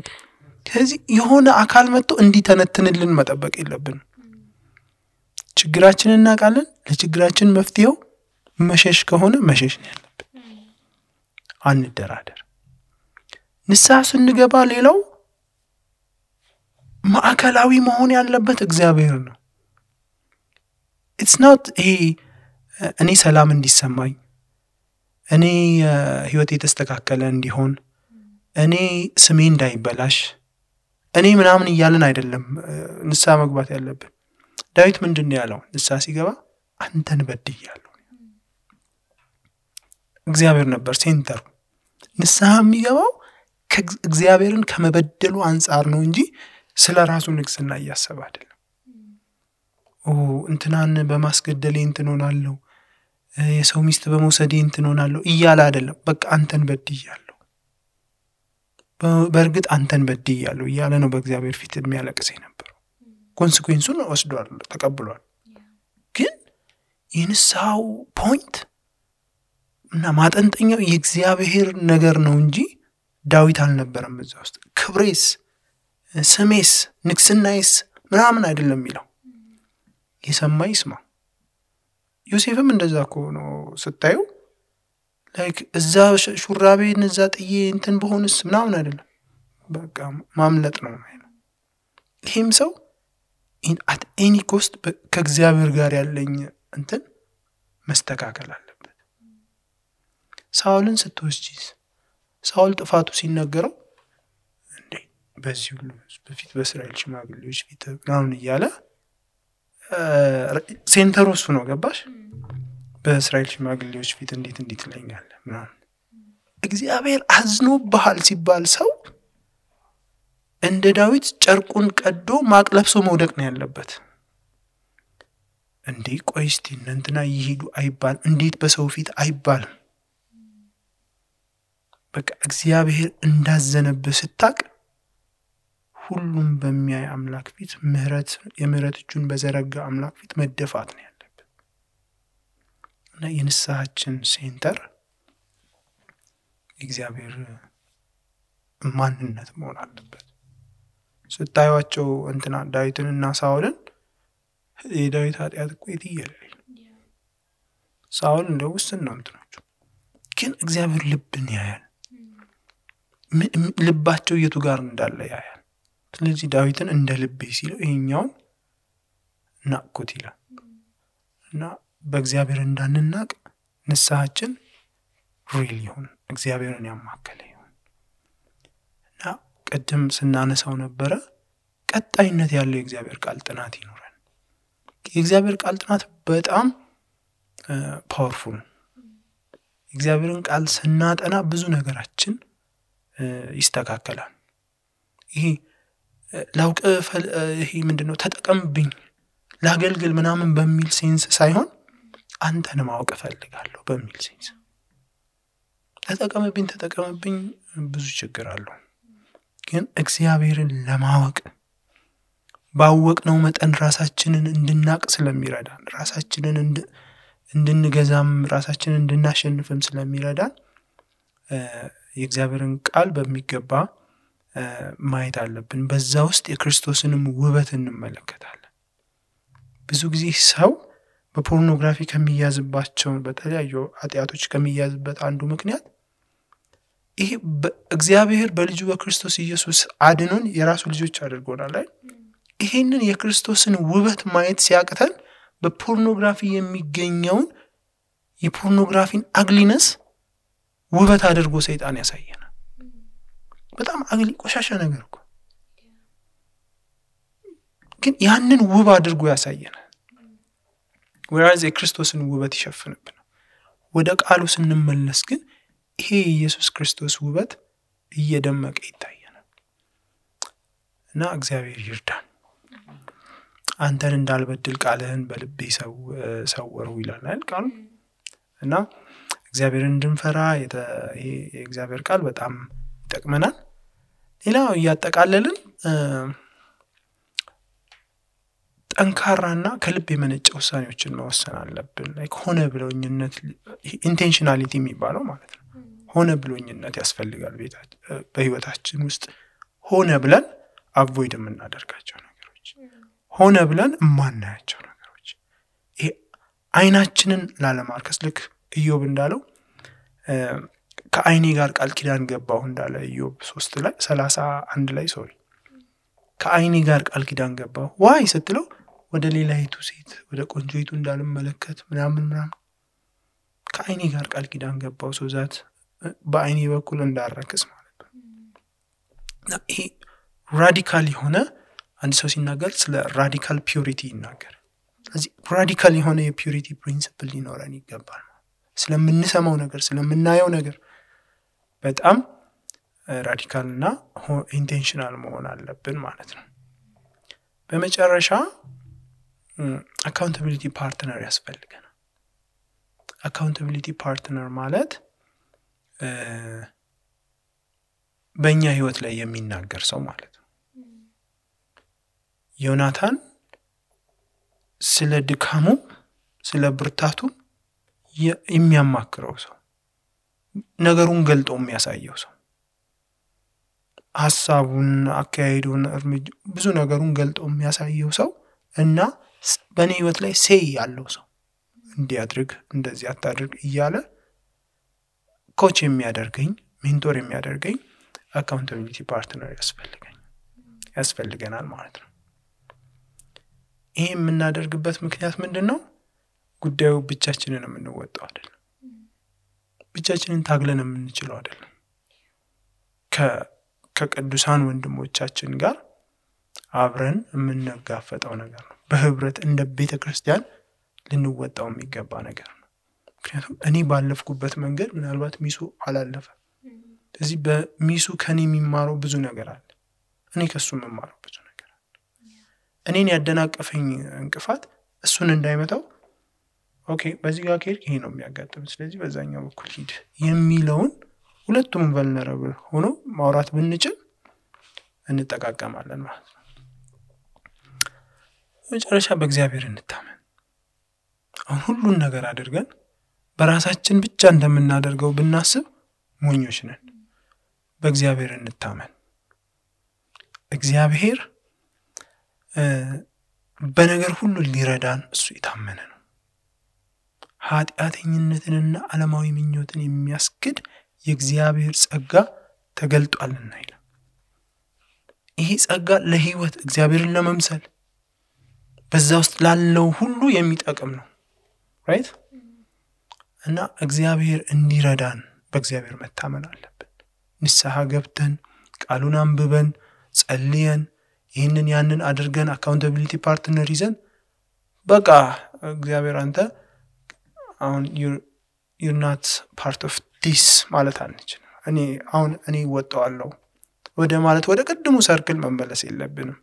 ስለዚህ የሆነ አካል መጥቶ እንዲተነትንልን መጠበቅ የለብንም። ችግራችንን እናውቃለን። ለችግራችን መፍትሄው መሸሽ ከሆነ መሸሽ ነው ያለብን። አንደራደር። ንስሐ ስንገባ ሌላው ማዕከላዊ መሆን ያለበት እግዚአብሔር ነው። it's not እኔ ሰላም እንዲሰማኝ፣ እኔ ህይወቴ ተስተካከለ እንዲሆን፣ እኔ ስሜ እንዳይበላሽ፣ እኔ ምናምን እያልን አይደለም ንስሐ መግባት ያለብን። ዳዊት ምንድነው ያለው ንስሐ ሲገባ? አንተን በድያለሁ። እግዚአብሔር ነበር ሴንተሩ። ንስሐ የሚገባው እግዚአብሔርን ከመበደሉ አንፃር ነው እንጂ ስለራሱ ንግስና እያሰበ አይደለም። እንትናን በማስገደሌ እንትን ሆናለሁ፣ የሰው ሚስት በመውሰዴ እንትን ሆናለሁ እያለ አይደለም። በቃ አንተን በድያለሁ፣ በእርግጥ አንተን በድያለሁ እያለ ነው በእግዚአብሔር ፊት የሚያለቅስ የነበረው። ኮንሲኩዌንሱን ወስዷል፣ ተቀብሏል። ግን የንስሐው ፖይንት እና ማጠንጠኛው የእግዚአብሔር ነገር ነው እንጂ ዳዊት አልነበረም እዛ ውስጥ። ክብሬስ፣ ስሜስ፣ ንግስናዬስ ምናምን አይደለም የሚለው። የሰማ ይስማ። ዮሴፍም እንደዛ እኮ ነው ስታዩ። ላይክ እዛ ሹራቤን እዛ ጥዬ እንትን በሆንስ ምናምን አይደለም፣ በቃ ማምለጥ ነው ማለት ነው። ይሄም ሰው at any cost ከእግዚአብሔር ጋር ያለኝ እንትን መስተካከል አለበት። ሳውልን ስትወስጂስ ሳውል ጥፋቱ ሲነገረው እንዴ በዚህ ሁሉ በፊት በእስራኤል ሽማግሌዎች ፊት ምናምን እያለ ሴንተሩ እሱ ነው። ገባሽ? በእስራኤል ሽማግሌዎች ፊት እንዴት ትለኛለህ ምናምን። እግዚአብሔር አዝኖብሃል ሲባል ሰው እንደ ዳዊት ጨርቁን ቀዶ ማቅ ለብሶ መውደቅ ነው ያለበት። እንዴ ቆይ እስቲ እንትና ይሄዱ አይባል፣ እንዴት በሰው ፊት አይባል። በቃ እግዚአብሔር እንዳዘነብህ ስታቅ ሁሉም በሚያይ አምላክ ፊት የምህረት እጁን በዘረጋ አምላክ ፊት መደፋት ነው ያለበት። እና የንስሐችን ሴንተር እግዚአብሔር ማንነት መሆን አለበት። ስታዩዋቸው እንትና ዳዊትንና ሳውልን የዳዊት ኃጢአት እኮ የትየለሌ ሳውል እንደው ውስን ነው እንትናቸው፣ ግን እግዚአብሔር ልብን ያያል። ልባቸው የቱ ጋር እንዳለ ያያል። ስለዚህ ዳዊትን እንደ ልቤ ሲለው ይሄኛውን ናቁት ይላል። እና በእግዚአብሔር እንዳንናቅ ንስሐችን ሪል ይሁን፣ እግዚአብሔርን ያማከለ ይሁን። እና ቀደም ስናነሳው ነበረ ቀጣይነት ያለው የእግዚአብሔር ቃል ጥናት ይኖራል። የእግዚአብሔር ቃል ጥናት በጣም ፓወርፉል ነው። የእግዚአብሔርን ቃል ስናጠና ብዙ ነገራችን ይስተካከላል። ይሄ ላውቅ ይሄ ምንድነው ተጠቀምብኝ ላገልግል ምናምን በሚል ሴንስ ሳይሆን አንተን ማወቅ ፈልጋለሁ በሚል ሴንስ። ተጠቀምብኝ ብዙ ችግር አለው። ግን እግዚአብሔርን ለማወቅ ባወቅነው መጠን ራሳችንን እንድናቅ ስለሚረዳን ራሳችንን እንድንገዛም ራሳችንን እንድናሸንፍም ስለሚረዳን የእግዚአብሔርን ቃል በሚገባ ማየት አለብን። በዛ ውስጥ የክርስቶስንም ውበት እንመለከታለን። ብዙ ጊዜ ሰው በፖርኖግራፊ ከሚያዝባቸው በተለያዩ ኃጢአቶች ከሚያዝበት አንዱ ምክንያት ይሄ እግዚአብሔር በልጁ በክርስቶስ ኢየሱስ አድኖን የራሱ ልጆች አድርጎናል አይደል? ይሄንን የክርስቶስን ውበት ማየት ሲያቅተን በፖርኖግራፊ የሚገኘውን የፖርኖግራፊን አግሊነስ ውበት አድርጎ ሰይጣን ያሳየናል። በጣም አግሊ ቆሻሻ ነገር እኮ ግን ያንን ውብ አድርጎ ያሳየናል። ወራዝ የክርስቶስን ውበት ይሸፍንብናል። ወደ ቃሉ ስንመለስ ግን ይሄ ኢየሱስ ክርስቶስ ውበት እየደመቀ ይታየናል። እና እግዚአብሔር ይርዳን። አንተን እንዳልበድል ቃልህን በልቤ ሰወርሁ ይላል ቃሉ። እና እግዚአብሔርን እንድንፈራ የእግዚአብሔር ቃል በጣም ይጠቅመናል። ሌላው እያጠቃለልን ጠንካራና ከልብ የመነጨ ውሳኔዎችን መወሰን አለብን። ሆነ ብሎኝነት ኢንቴንሽናሊቲ የሚባለው ማለት ነው። ሆነ ብሎኝነት ያስፈልጋል በህይወታችን ውስጥ ሆነ ብለን አቮይድ የምናደርጋቸው ነገሮች፣ ሆነ ብለን የማናያቸው ነገሮች፣ ይሄ አይናችንን ላለማርከስ ልክ ኢዮብ እንዳለው ከአይኔ ጋር ቃል ኪዳን ገባሁ እንዳለ ኢዮብ 3:31 ላይ ከአይኔ ጋር ቃል ኪዳን ገባሁ ዋይ ስትለው ወደ ሌላይቱ ሴት ወደ ቆንጆይቱ እንዳልመለከት ምናምን ከአይኔ ጋር ቃል ኪዳን ገባሁ ሶዛት በአይኔ በኩል እንዳረክስ ማለት ነው። ይሄ ራዲካል የሆነ አንድ ሰው ሲናገር ስለ ራዲካል ፒዩሪቲ ይናገር። ስለዚህ ራዲካል የሆነ የፒዩሪቲ ፕሪንሲፕል ሊኖረን ይገባል። ስለምንሰማው ነገር ስለምናየው ነገር በጣም ራዲካልና ኢንቴንሽናል መሆን አለብን ማለት ነው። በመጨረሻ አካውንታቢሊቲ ፓርትነር ያስፈልገናል። አካውንታቢሊቲ ፓርትነር ማለት በእኛ ህይወት ላይ የሚናገር ሰው ማለት ነው። ዮናታን ስለ ድካሙ ስለ ብርታቱ የሚያማክረው ሰው፣ ነገሩን ገልጦ የሚያሳየው ሰው፣ ሐሳቡን አካሄዱን ብዙ ነገሩን ገልጦ የሚያሳየው ሰው እና በእኔ ህይወት ላይ ሴይ ያለው ሰው እንዲያድርግ እንደዚህ አታድርግ እያለ ኮች የሚያደርገኝ ሜንቶር የሚያደርገኝ አካውንታቢሊቲ ፓርትነር ያስፈልገናል ማለት ነው። ይሄ የምናደርግበት ምክንያት ምንድነው? ጉዳዩ ብቻችንን የምንወጣው አይደለም። ብቻችንን ታግለን የምንችለው አይደለም። ከቅዱሳን ወንድሞቻችን ጋር አብረን የምንጋፈጠው ነገር ነው። በህብረት እንደ ቤተክርስቲያን ልንወጣው የሚገባ ነገር ነው። ምክንያቱም እኔ ባለፍኩበት መንገድ ምናልባት ሚሱ አላለፈ። ስለዚህ በሚሱ ከኔ የሚማረው ብዙ ነገር አለ። እኔ ከሱ የምማረው ብዙ ነገር አለ። እኔን ያደናቀፈኝ እንቅፋት እሱን እንዳይመታው ኦኬ በዚህ ጋር ከሄድክ ይሄ ነው የሚያጋጥመው፣ ስለዚህ በዛኛው በኩል ሂድ የሚለውን ሁለቱም ቨልነራብል ሆኖ ማውራት ብንችል እንጠቃቀማለን ማለት ነው። መጨረሻ በእግዚአብሔር እንታመን። አሁን ሁሉን ነገር አድርገን በራሳችን ብቻ እንደምናደርገው ብናስብ ሞኞች ነን። በእግዚአብሔር እንታመን። እግዚአብሔር በነገር ሁሉ ሊረዳን እሱ የታመነ ነው። ኃጢአተኝነትንና ዓለማዊ ምኞትን የሚያስክድ የእግዚአብሔር ጸጋ ተገልጧልና ይላል። ይሄ ጸጋ ለህይወት እግዚአብሔርን ለመምሰል በዛ ውስጥ ላለው ሁሉ የሚጠቅም ነው። ራይት? እና እግዚአብሔር እንዲረዳን በእግዚአብሔር መታመን አለብን። ንስሐ ገብተን ቃሉን አንብበን ጸልየን ይህንን ያንን አድርገን አካውንታቢሊቲ ፓርትነር ይዘን በቃ እግዚአብሔር አንተ አሁን you're not part of this ማለት አንችልም። እኔ ወጣዋለሁ ወደ ማለት ወደ ቀድሞ ሰርክል መመለስ የለብንም።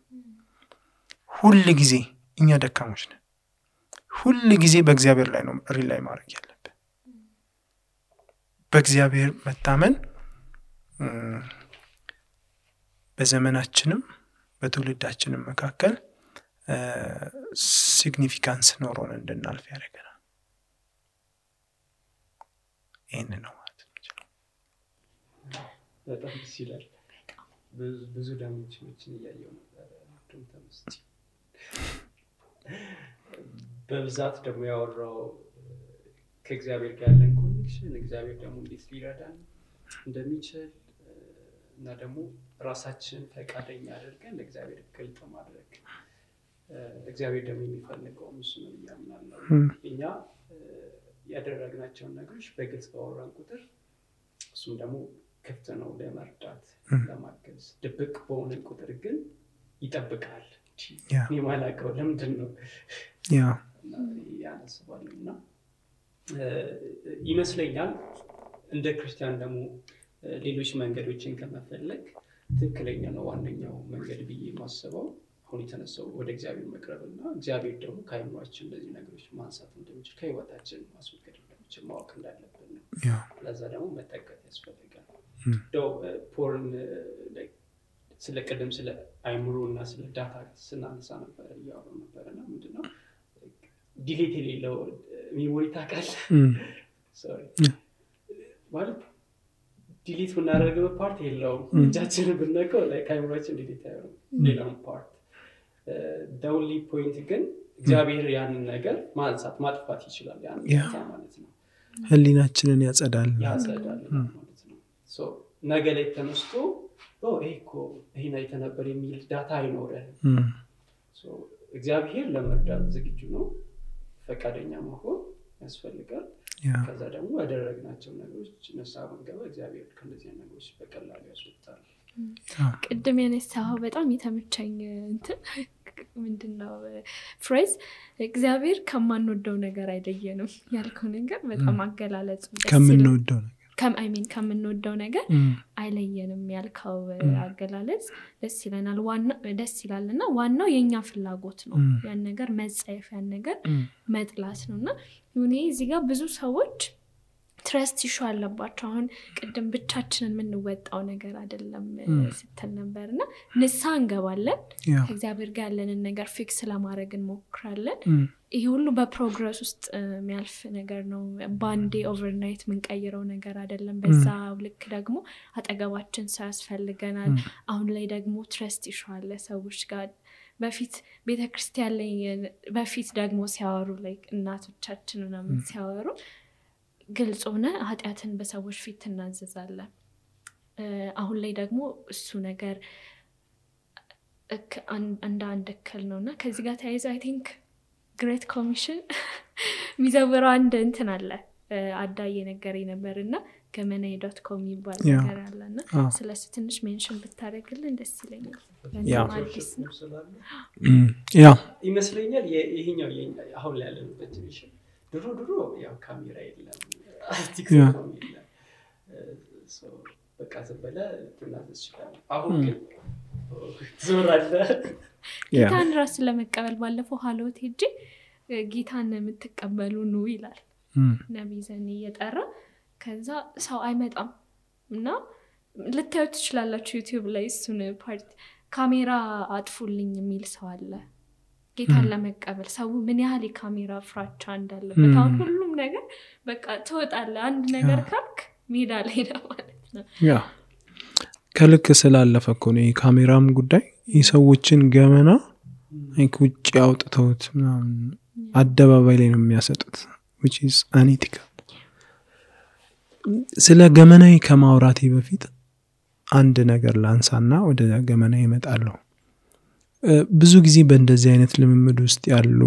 ሁሉ ጊዜ እኛ ደካሞች ነን። ሁሉ ጊዜ በእግዚአብሔር ላይ ነው ሪላይ ማድረግ ያለብን። በእግዚአብሔር መታመን በዘመናችንም በትውልዳችንም መካከል ሲግኒፊካንስ ኖሮን እንድናልፍ ያደርገናል። ይሄን ነው ማለት ነው። በጣም ደስ ይላል። ብዙ ዳይሜንሽኖችን እያየሁ ነበር ተምስቲ በብዛት ደግሞ ያወራው ከእግዚአብሔር ጋር ያለን ኮኔክሽን እግዚአብሔር ደግሞ እንዴት ሊረዳን እንደሚችል እና ደግሞ ራሳችን ፈቃደኛ አድርገን ለእግዚአብሔር ግልጥ ማድረግ እግዚአብሔር ደግሞ የሚፈልገው እሱ ነው ያምናለው። እኛ ያደረግናቸው ነገሮች በግልጽ ባወራን ቁጥር እሱም ደግሞ ክፍት ነው ለመርዳት ለማገዝ። ድብቅ በሆነ ቁጥር ግን ይጠብቃል። የማላቀው ለምንድን ነው ያነስባልና ይመስለኛል እንደ ክርስቲያን ደግሞ ሌሎች መንገዶችን ከመፈለግ ትክክለኛ ነው ዋነኛው መንገድ ብዬ ማስበው አሁን የተነሳው ወደ እግዚአብሔር መቅረብና እግዚአብሔር ደግሞ ከአይምሯችን እንደዚህ ነገሮች ማንሳት እንደሚችል ከህይወታችን ማስወገድ እንደሚችል ማወቅ እንዳለብን ነው። ለዛ ደግሞ መጠቀም ያስፈልጋል። ፖርን ስለ ቀደም ስለ አይምሮና ስለ ዳታ ስናነሳ ነበር ያወራ ነበርና ምንድነው ዲሌት የሌለው ሜሞሪ ታውቃለህ? ሶሪ ማለት ዲሊት ብናደርገው ፓርት የለውም። እጃችንን ብንነካው ላይክ አይምሮአችን ዲሊት ያደርጋል ሌላውን ፓርት። the only point ግን እግዚአብሔር ያንን ነገር ማንሳት ማጥፋት ይችላል ያን ማለት ነው። ህሊናችንን ያጸዳል ማለት ነው። ሶ ነገ ላይ ተነስቶ ይሄ ነው የተነበር የሚል ዳታ አይኖርም። ሶ እግዚአብሔር ለመርዳት ዝግጁ ነው። ፈቃደኛ መሆን ያስፈልጋል። ከዛ ደግሞ ያደረግናቸው ነገሮች ነሳው ገባ እግዚአብሔር ከነዚህ ነገሮች በቀላሉ ያስወጣል። ቅድም ያነሳው በጣም የተመቸኝ ምንድነው ፍሬዝ እግዚአብሔር ከማንወደው ነገር አይለየንም ያልከው ነገር በጣም አገላለጹ ከምንወደው ነገር አይለየንም ያልከው አገላለጽ ደስ ይላልና ዋናው የኛ ፍላጎት ነው። ያን ነገር መጻየፍ ያን ነገር መጥላት ነውና እዚህ ጋር ብዙ ሰዎች ትረስት ኢሹ አለባቸው። አሁን ቅድም ብቻችንን የምንወጣው ነገር አይደለም ስትል ነበርና ንስሐ እንገባለን ከእግዚአብሔር ጋር ያለንን ነገር ፊክስ ለማድረግ እንሞክራለን። ይሄ ሁሉ በፕሮግረስ ውስጥ የሚያልፍ ነገር ነው። ባንዴ ኦቨርናይት የምንቀይረው ነገር አይደለም። በዛ ልክ ደግሞ አጠገባችን ሰው ያስፈልገናል። አሁን ላይ ደግሞ ትረስት ኢሹ አለ ሰዎች ጋር በፊት ቤተክርስቲያን ላይ በፊት ደግሞ ሲያወሩ ላይ እናቶቻችን ምናምን ሲያወሩ ግልጽ ሆነ ኃጢያትን በሰዎች ፊት እናዘዛለን። አሁን ላይ ደግሞ እሱ ነገር አንድ እክል ነውና ከዚህ ጋር ተያይዞ አይ ቲንክ ግሬት ኮሚሽን ሚዘወራው አንድ እንትን አለ አዳዬ ነገር ነበርና ገመናይ.com ይባል ነገር አለና ስለሱ ትንሽ ሜንሽን ብታረግልን ደስ ይለኛል። ይመስለኛል ይሄኛው አሁን ላይ ያለንበት ዲቪዥን ድሮ ያው ካሜራ የለም ቲክቶክ የለም ሶ በቃ ዘበለ ትናዘዝ ይችላል። አሁን ግን ዞራለ ጌታን ራስ ለመቀበል ባለፈው ሀሎት ሄጄ ጌታን የምትቀበሉ ነው ይላል ነብይ ዘኒ እየጠራ ከዛ ሰው አይመጣም እና ልታዩት ትችላላችሁ ዩቲዩብ ላይ እሱን ፓርት ካሜራ አጥፉልኝ የሚል ሰው አለ። ጌታን ለመቀበል ሰው ምን ያህል የካሜራ ፍራቻ እንዳለበት አሁን ሁሉም ነገር በቃ ተወጣለ አንድ ነገር ካልክ ሜዳ ላይ ነው ማለት ነው። ከልክ ስላለፈ እኮ ነው የካሜራም ጉዳይ የሰዎችን ገመና አይኩጭ ያውጥተውት አደባባይ ላይ ነው የሚያሰጡት which is unethical። ስለ ገመናይ ከማውራቴ በፊት አንድ ነገር ላንሳና ወደ ገመናይ እመጣለሁ። ብዙ ጊዜ በእንደዚህ አይነት ልምምድ ውስጥ ያሉ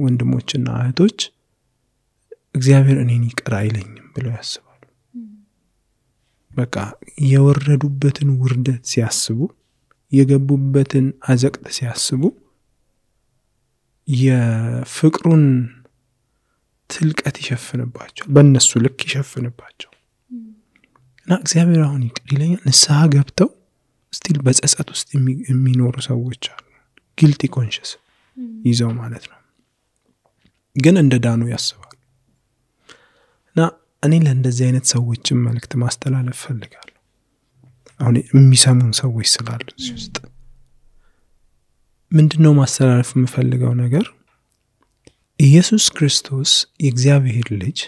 ወንድሞችና እህቶች እግዚአብሔር እኔን ይቅር አይለኝም ብለው ያስባሉ። በቃ የወረዱበትን ውርደት ሲያስቡ የገቡበትን አዘቅት ሲያስቡ የፍቅሩን ትልቀት ይሸፍንባቸው በእነሱ ልክ ይሸፍንባቸው እና እግዚአብሔር አሁን ይቅር ይለኛል ንስሐ ገብተው ስቲል በጸጸት ውስጥ የሚኖሩ ሰዎች አሉ ጊልቲ ኮንሽስ ይዘው ማለት ነው ግን እንደ ዳኑ ያስባሉ እና እኔ ለእንደዚህ አይነት ሰዎችን መልእክት ማስተላለፍ ፈልጋለሁ አሁን የሚሰሙን ሰዎች ስላሉ እዚህ ውስጥ ምንድነው ማስተላለፍ የምፈልገው ነገር ኢየሱስ ክርስቶስ የእግዚአብሔር ልጅ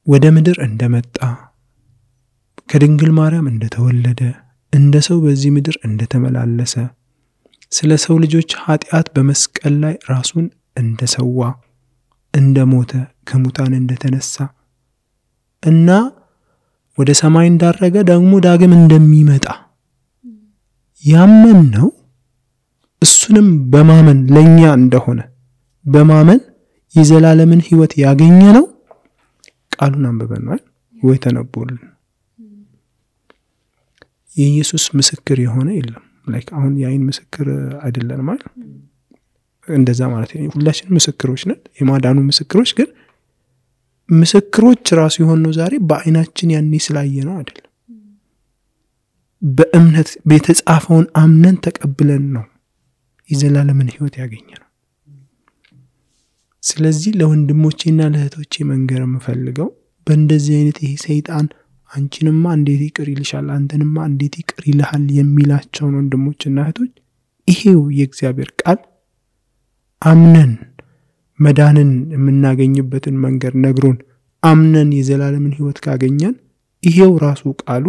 ወደ ምድር እንደመጣ ከድንግል ማርያም እንደተወለደ እንደ ሰው በዚህ ምድር እንደተመላለሰ ስለ ሰው ልጆች ኃጢአት በመስቀል ላይ ራሱን እንደሰዋ እንደሞተ ከሙታን እንደተነሳ እና ወደ ሰማይ እንዳረገ ደግሞ ዳግም እንደሚመጣ ያመን ነው እሱንም በማመን ለኛ እንደሆነ በማመን የዘላለምን ሕይወት ያገኘ ነው ቃሉን አንብበን ወይ ተነቦልን የኢየሱስ ምስክር የሆነ የለም ላይክ አሁን ያይን ምስክር አይደለም ማለት እንደዛ ማለት ነው ሁላችን ምስክሮች ነን የማዳኑ ምስክሮች ግን ምስክሮች ራሱ የሆነው ዛሬ በአይናችን ያኔ ስላየ ነው አይደል በእምነት በተጻፈውን አምነን ተቀብለን ነው የዘላለምን ሕይወት ያገኘ ነው ስለዚህ ለወንድሞቼና ለእህቶቼ መንገር የምፈልገው በእንደዚህ አይነት ይሄ ሰይጣን አንቺንማ እንዴት ይቅር ይልሻል አንተንማ እንዴት ይቅር ይልሃል የሚላቸው ወንድሞችና እህቶች ይሄው የእግዚአብሔር ቃል አምነን መዳንን የምናገኝበትን መንገድ ነግሮን አምነን የዘላለምን ሕይወት ካገኘን ይሄው ራሱ ቃሉ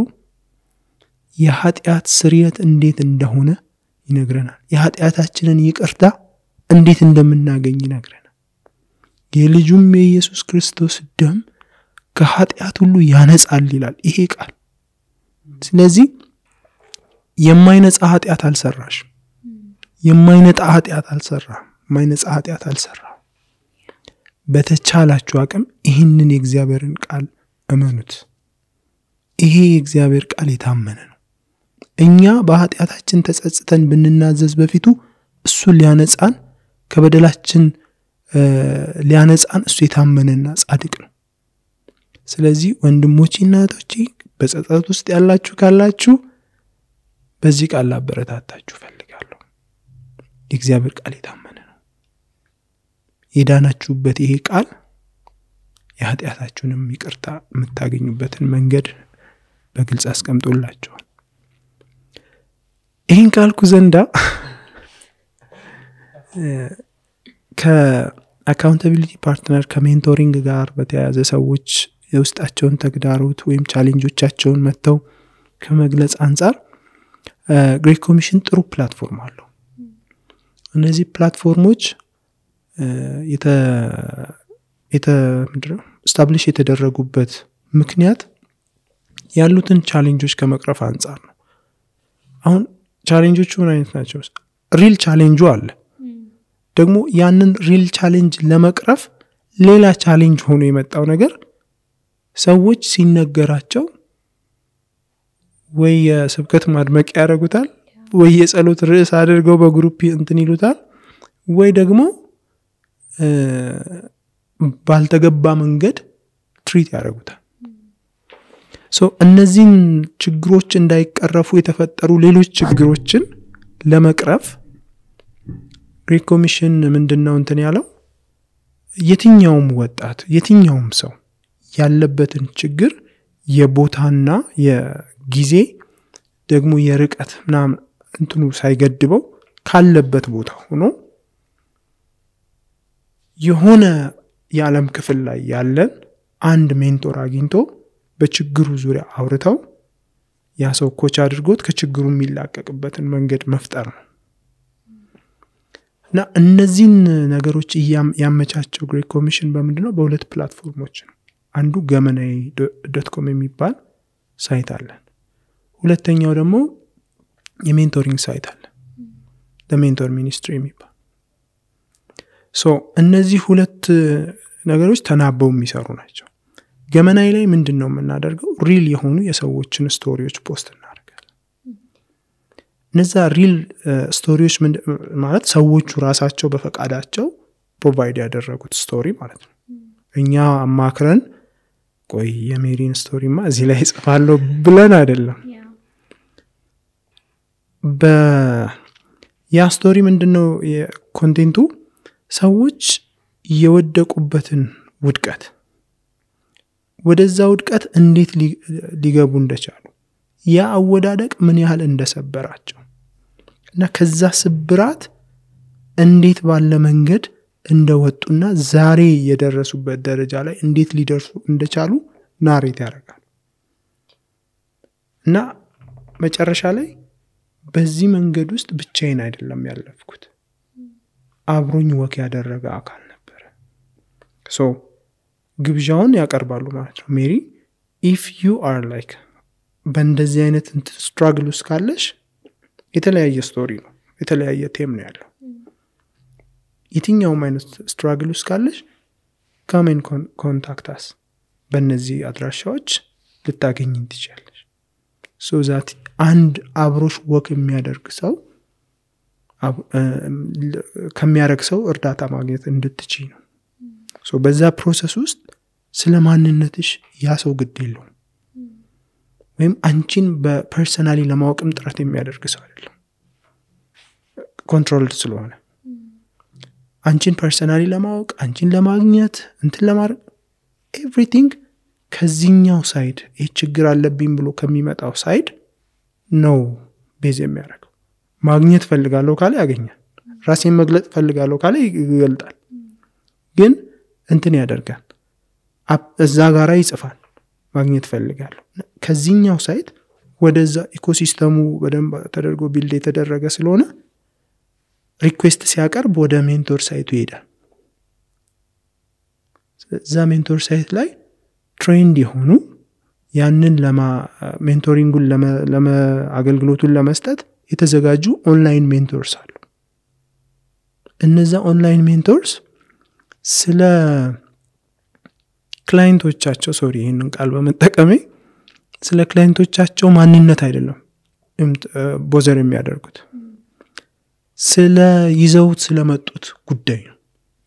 የኃጢአት ስርየት እንዴት እንደሆነ ይነግረናል የኃጢአታችንን ይቅርታ እንዴት እንደምናገኝ ይነግረናል የልጁም የኢየሱስ ክርስቶስ ደም ከኃጢአት ሁሉ ያነጻል ይላል ይሄ ቃል ስለዚህ የማይነጻ ኃጢአት አልሰራሽ የማይነጻ ኃጢአት አልሰራ በተቻላችሁ አቅም ይህንን የእግዚአብሔርን ቃል እመኑት ይሄ የእግዚአብሔር ቃል የታመነ ነው እኛ በኃጢአታችን ተጸጽተን ብንናዘዝ በፊቱ እሱ ሊያነጻን ከበደላችን ሊያነጻን እሱ የታመነና ጻድቅ ነው ስለዚህ ወንድሞቼና እህቶቼ በጸጸት ውስጥ ያላችሁ ካላችሁ በዚህ ቃል አበረታታችሁ ፈልጋለሁ የእግዚአብሔር ቃል የታመነ ነው የዳናችሁበት ይሄ ቃል የኃጢአታችሁንም ይቅርታ የምታገኙበትን መንገድ በግልጽ አስቀምጦላችኋል ይህን ካልኩ ዘንዳ ከአካውንታቢሊቲ ፓርትነር ከሜንቶሪንግ ጋር በተያያዘ ሰዎች የውስጣቸውን ተግዳሮት ወይም ቻሌንጆቻቸውን መተው ከመግለጽ አንፃር ግሬት ኮሚሽን ጥሩ ፕላትፎርም አለው እነዚህ ፕላትፎርሞች ስታብሊሽ የተደረጉበት ምክንያት ያሉትን ቻሌንጆች ከመቅረፍ አንፃር ነው አሁን ቻሌንጆቹ ምን አይነት ናቸው ሪል ቻሌንጁ አለ ደግሞ ያንን ሪል ቻሌንጅ ለመቅረፍ ሌላ ቻሌንጅ ሆኖ የመጣው ነገር ሰዎች ሲነገራቸው ወይ የስብከት ማድመቅ ያደርጉታል ወይ የጸሎት ርዕስ አድርገው በግሩፕ እንትን ይሉታል ወይ ደግሞ ባልተገባ መንገድ ትሪት ያደርጉታል እነዚህን ችግሮች እንዳይቀረፉ የተፈጠሩ ሌሎች ችግሮችን ለመቅረፍ ግሬት ኮሚሽን ምንድነው እንትን ያለው የትኛውም ወጣት የትኛውም ሰው ያለበትን ችግር የቦታና የጊዜ ደግሞ የርቀት ምናምን እንትኑ ሳይገድበው ካለበት ቦታ ሆኖ የሆነ የዓለም ክፍል ላይ ያለን አንድ ሜንቶር አግኝቶ በችግሩ ዙሪያ አውርተው ያ ሰው ኮች አድርጎት ከችግሩ የሚላቀቅበትን መንገድ መፍጠር ነው እና እነዚህን ነገሮች ያመቻቸው ግሬት ኮሚሽን በምንድነው በሁለት ፕላትፎርሞች ነው አንዱ ገመናይ.com የሚባል ሳይት አለን ሁለተኛው ደግሞ የሜንቶሪንግ ሳይት አለ ለሜንቶር ሚኒስትሪ የሚባል እነዚህ ሁለት ነገሮች ተናበው የሚሰሩ ናቸው ገመናይ ላይ ምንድነው የምናደርገው ሪል የሆኑ የሰዎችን ስቶሪዎች ፖስት እናደርጋለን እነዛ ሪል ስቶሪዎች ማለት ሰዎቹ ራሳቸው በፈቃዳቸው ፕሮቫይድ ያደረጉት ስቶሪ ማለት ነው። እኛ አማክረን ቆይ የሜሪን ስቶሪማ እዚህ ላይ ጽፋለሁ ብለን አይደለም። ያ ስቶሪ ምንድነው የኮንቴንቱ? ሰዎች የወደቁበትን ውድቀት ወደዛ ውድቀት እንዴት ሊገቡ እንደቻሉ ያ አወዳደቅ ምን ያህል እንደሰበራቸው እና ከዛ ስብራት እንዴት ባለ መንገድ እንደወጡና ዛሬ የደረሱበት ደረጃ ላይ እንዴት ሊደርሱ እንደቻሉ ናሬት ያደርጋል። እና መጨረሻ ላይ በዚህ መንገድ ውስጥ ብቻዬን አይደለም ያለፍኩት፣ አብሮኝ ወክ ያደረገ አካል ነበር። ሶ ግብዣውን ያቀርባሉ ማለት ነው። ሜሪ if you are like በእንደዚህ አይነት ስትራግል ውስጥ ካለሽ የተለያየ ስቶሪ ነው፣ የተለያየ ቴም ነው ያለው። የትኛውም አይነት ስትራግል ውስጥ ካለሽ come and contact us በእነዚህ አድራሻዎች ልታገኝን ትችላለሽ። so that አንድ አብሮሽ ወክ የሚያደርግ ሰው ከሚያደርግ ሰው እርዳታ ማግኘት እንድትችይ ነው። so በዛ ፕሮሰስ ውስጥ ስለማንነትሽ ያ ሰው ግድ የለውም፣ ወይም አንቺን በፐርሰናሊ ለማወቅም ጥረት የሚያደርግ ሰው አይደለም። ኮንትሮልድ ስለሆነ አንቺን ፐርሰናሊ ለማወቅ አንቺን ለማግኘት እንትን ለማድረግ ኤቭሪቲንግ ከዚህኛው ሳይድ ይህ ችግር አለብኝ ብሎ ከሚመጣው ሳይድ ነው ቤዝ የሚያደርገው። ማግኘት ፈልጋለሁ ካለ ያገኛል፣ ራሴን መግለጥ ፈልጋለሁ ካለ ይገልጣል። ግን እንትን ያደርጋል፣ እዛ ጋራ ይጽፋል ማግኘት ፈልጋለሁ። ከዚህኛው ሳይድ ወደዛ ኢኮሲስተሙ በደንብ ተደርጎ ቢልድ የተደረገ ስለሆነ ሪኩዌስት ሲያቀርብ ወደ ሜንቶር ሳይቱ ይሄዳል። እዛ ሜንቶር ሳይት ላይ ትሬንድ የሆኑ ያንን ሜንቶሪንጉን አገልግሎቱን ለመስጠት የተዘጋጁ ኦንላይን ሜንቶርስ አሉ። እነዛ ኦንላይን ሜንቶርስ ስለ ክላይንቶቻቸው ይህንን ቃል በመጠቀሜ ስለ ክላይንቶቻቸው ማንነት አይደለም ቦዘር የሚያደርጉት፣ ስለ ይዘውት ስለመጡት ጉዳይ ነው።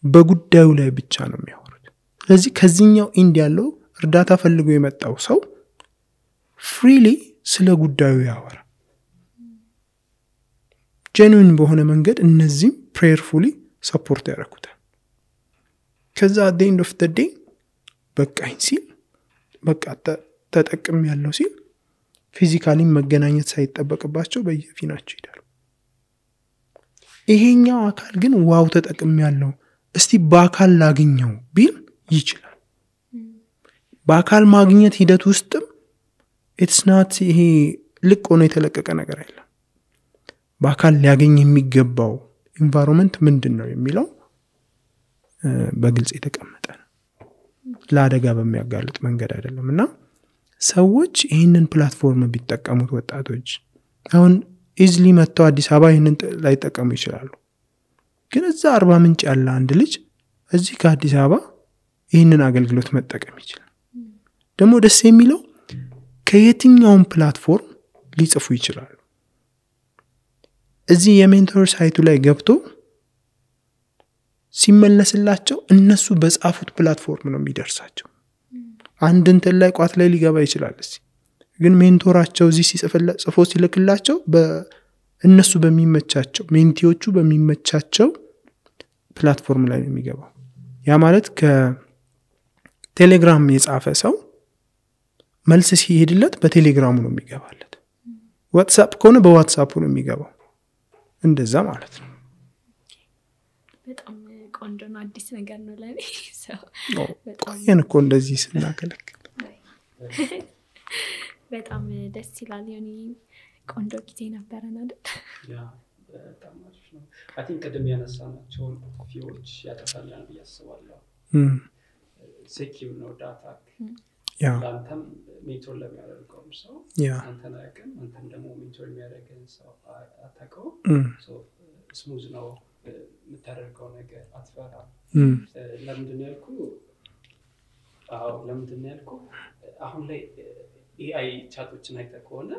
በጉዳዩ ላይ ብቻ ነው የሚያወሩት። ስለዚህ ከዚህኛው ኢንድ ያለው እርዳታ ፈልጎ የመጣው ሰው ፍሪሊ ስለ ጉዳዩ ያወራል። ጄኑዊን በሆነ መንገድ እነዚህም ፕሬየርፉሊ ሰፖርት ያደርጉታል። ከዛ at the end of the day በቃኝ ሲል በቃ ተጠቅም ያለው ሲል ፊዚካሊ መገናኘት ሳይጠበቅባቸው በየፊናቸው ይሄዳሉ። ይሄኛው አካል ግን ዋው ተጠቅም ያለው እስቲ በአካል ላግኘው ቢል ይችላል። በአካል ማግኘት ሂደት ውስጥም it's not ይሄ ልቅ ሆኖ የተለቀቀ ነገር አይደለም። በአካል ሊያገኝ የሚገባው ኢንቫይሮንመንት ምንድነው የሚለው በግልጽ የተቀመጠ ነው። ለአደጋ በሚያጋልጥ መንገድ አይደለምና ሰዎች ይህንን ፕላትፎርም ቢጠቀሙት ወጣቶች አሁን ኢዝሊ መጥተው አዲስ አበባ ይህንን ላይ ተጠቀሙ ይችላሉ። ግን እዛ 40 ምንጭ ያለ አንድ ልጅ እዚህ ከአዲስ አበባ ይህንን አገልግሎት መጠቀም ይችላል። ደግሞ ደስ የሚለው ከየትኛውም ፕላትፎርም ሊጽፉ ይችላሉ። እዚህ የሜንቶር ሳይቱ ላይ ገብቶ ሲመለስላቸው እነሱ በጻፉት ፕላትፎርም ነው የሚደርሳቸው። አንድ እንትን ላይ ቋት ላይ ሊገባ ይችላል። ግን ሜንቶራቸው እዚህ ጽፎ ሲልክላቸው በእነሱ በሚመቻቸው ሜንቲዎቹ በሚመቻቸው ፕላትፎርም ላይ ነው የሚገባው። ያ ማለት ከቴሌግራም የጻፈ ሰው መልስ ሲሄድለት በቴሌግራሙ ነው የሚገባለት። ዋትስአፕ ከሆነ በዋትስአፑ ነው የሚገባው። እንደዛ ማለት ነው። በጣም ቆንጆ ነው። አዲስ ነገር ነው ለኔ። ቆየን እኮ እንደዚህ ስናከለክል። በጣም ደስ ይላል። የኔ ቆንጆ ጊዜ ነበረና አይደል? ያ በጣም አሪፍ ነው። አይ ቲንክ ቀደም ያነሳናቸው ፊዎች ያጠፋኛል ብዬ አስባለሁ። ሴኪዩር ነው ዳታ። ያ አንተም ሜንቶር ለሚያደርገው ሰው አንተን አያውቅም፣ አንተም ደግሞ ሜንቶር የሚያደርገን ሰው አታውቀው። ሶ ስሙዝ ነው የምታደርገው ነገር፣ አትፈራም። ለምንድን ያልኩ አሁን ላይ ኤአይ ቻቶችን አይተህ ከሆነ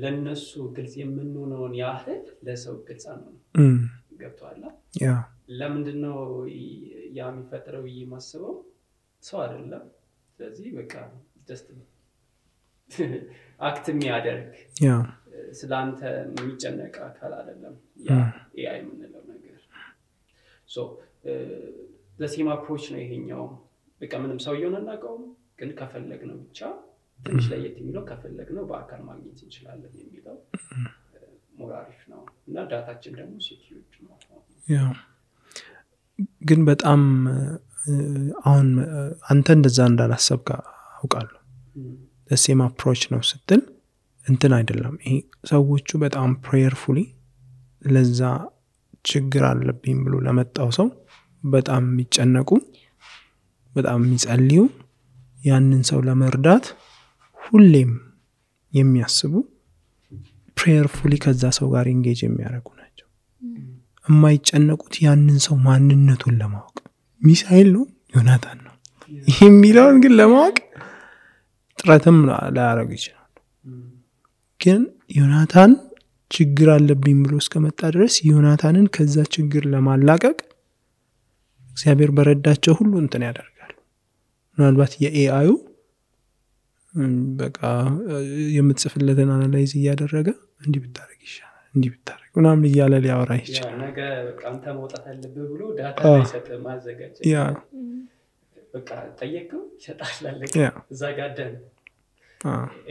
ለነሱ ግልጽ የምንሆነውን ያህል ለሰው ግልጽ ነው ገብቷል ያ ለምንድነው ያ የሚፈጠረው የማስበው ሰው አይደለም ስለዚህ በቃ just አክት የሚያደርግ ያ ስላንተ የሚጨነቅ አካል አይደለም ያ AI የምንለው ነገር so the same approach ነው ይሄኛው በቃ ምንም ሰው ይሆናልናቀው ግን ከፈለግነው ብቻ ትንሽ ላይ የሚለው ከፈለግነው በአካል ማግኘት እንችላለን የሚለው ሞራሪፍ ነው እና ዳታችን ደግሞ ሴኩሪቲ ነው ያ ግን በጣም አሁን አንተ እንደዛ እንዳላሰብካ አውቃለሁ the same approach ነው ስትል እንትን አይደለም ይሄ ሰዎቹ በጣም prayerfully ለዛ ችግር አለብኝ ብሎ ለመጣው ሰው በጣም የሚጨነቁ በጣም የሚጸልዩ ያንን ሰው ለመርዳት ሁሌም የሚያስቡ prayerfully ከዛ ሰው ጋር engage የሚያደርጉ ናቸው የማይጨነቁት ያንን ሰው ማንነቱን ለማወቅ ሚሳኤል ነው ዮናታን ነው ይሄ የሚለውን ግን ለማወቅ ጥረትም ላያደርግ ይችላል ግን ዮናታን ችግር አለብኝ ብሎ እስከመጣ ድረስ ዮናታንን ከዛ ችግር ለማላቀቅ እግዚአብሔር በረዳቸው ሁሉ እንትን ያደርጋል ምናልባት የኤአዩ በቃ የምትጽፍለትን አናላይዝ እያደረገ እንዲህ ብታረግ ይሻላል እንዲህ ብታረግ ምናምን እያለ ሊያወራ ይችላል ነገ በቃ አንተ መውጣት አለብህ ብሎ ዳታ ይሰጥ ማዘጋጀት ያ በቃ ጠየቀው ይሰጣል አለ እዛ ጋር ደን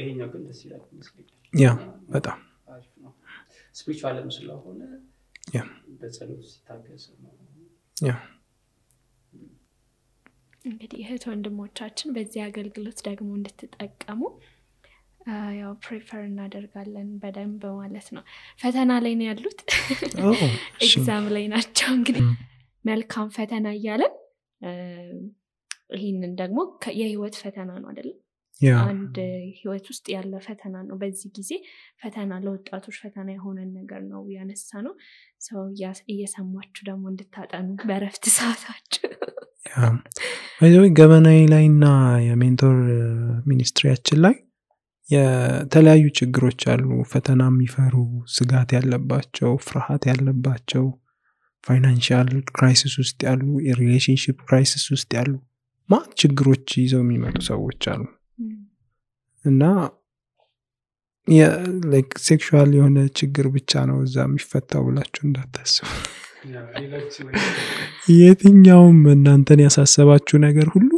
ይሄኛው ግን ደስ ይላል መስለኝ ያ በጣም አሪፍ ነው ስፒሪቹዋልም ስለሆነ ያ በጸሎት ሲታገስ ነው ያ እንግዲህ እህት ወንድሞቻችን በዚህ አገልግሎት ደግሞ እንድትጠቀሙ ያው ፕሪፈር እናደርጋለን በደንብ ማለት ነው ፈተና ላይ ነው ያሉት ኤግዛም ላይ ናቸው እንግዲህ መልካም ፈተና እያለን ይሄንን ደግሞ የህይወት ፈተና ነው አይደል አንድ ህይወት ውስጥ ያለ ፈተና ነው በዚህ ጊዜ ፈተና ለወጣቶች ፈተና የሆነ ነገር ነው ያነሳነው ሰው እየሰማችሁ ደግሞ እንድታጠኑ በረፍት ሰዓታችሁ ያ አይዞህ ገበናይ ላይና የሜንቶር ሚኒስትሪያችን ላይ የተለያዩ ችግሮች አሉ ፈተና የሚፈሩ ስጋት ያለባቸው ፍርሃት ያለባቸው ፋይናንሻል ክራይሲስ ውስጥ ያሉ የሪሌሽንሺፕ ክራይሲስ ውስጥ ያሉ ችግሮች ይዘው የሚመጡ ሰዎች አሉ እና like ሴክሹዋል የሆነ ችግር ብቻ ነው እዛ የሚፈታው ብላችሁ እንዳታስቡ የትኛውም እናንተን ያሳሰባችሁ ነገር ሁሉ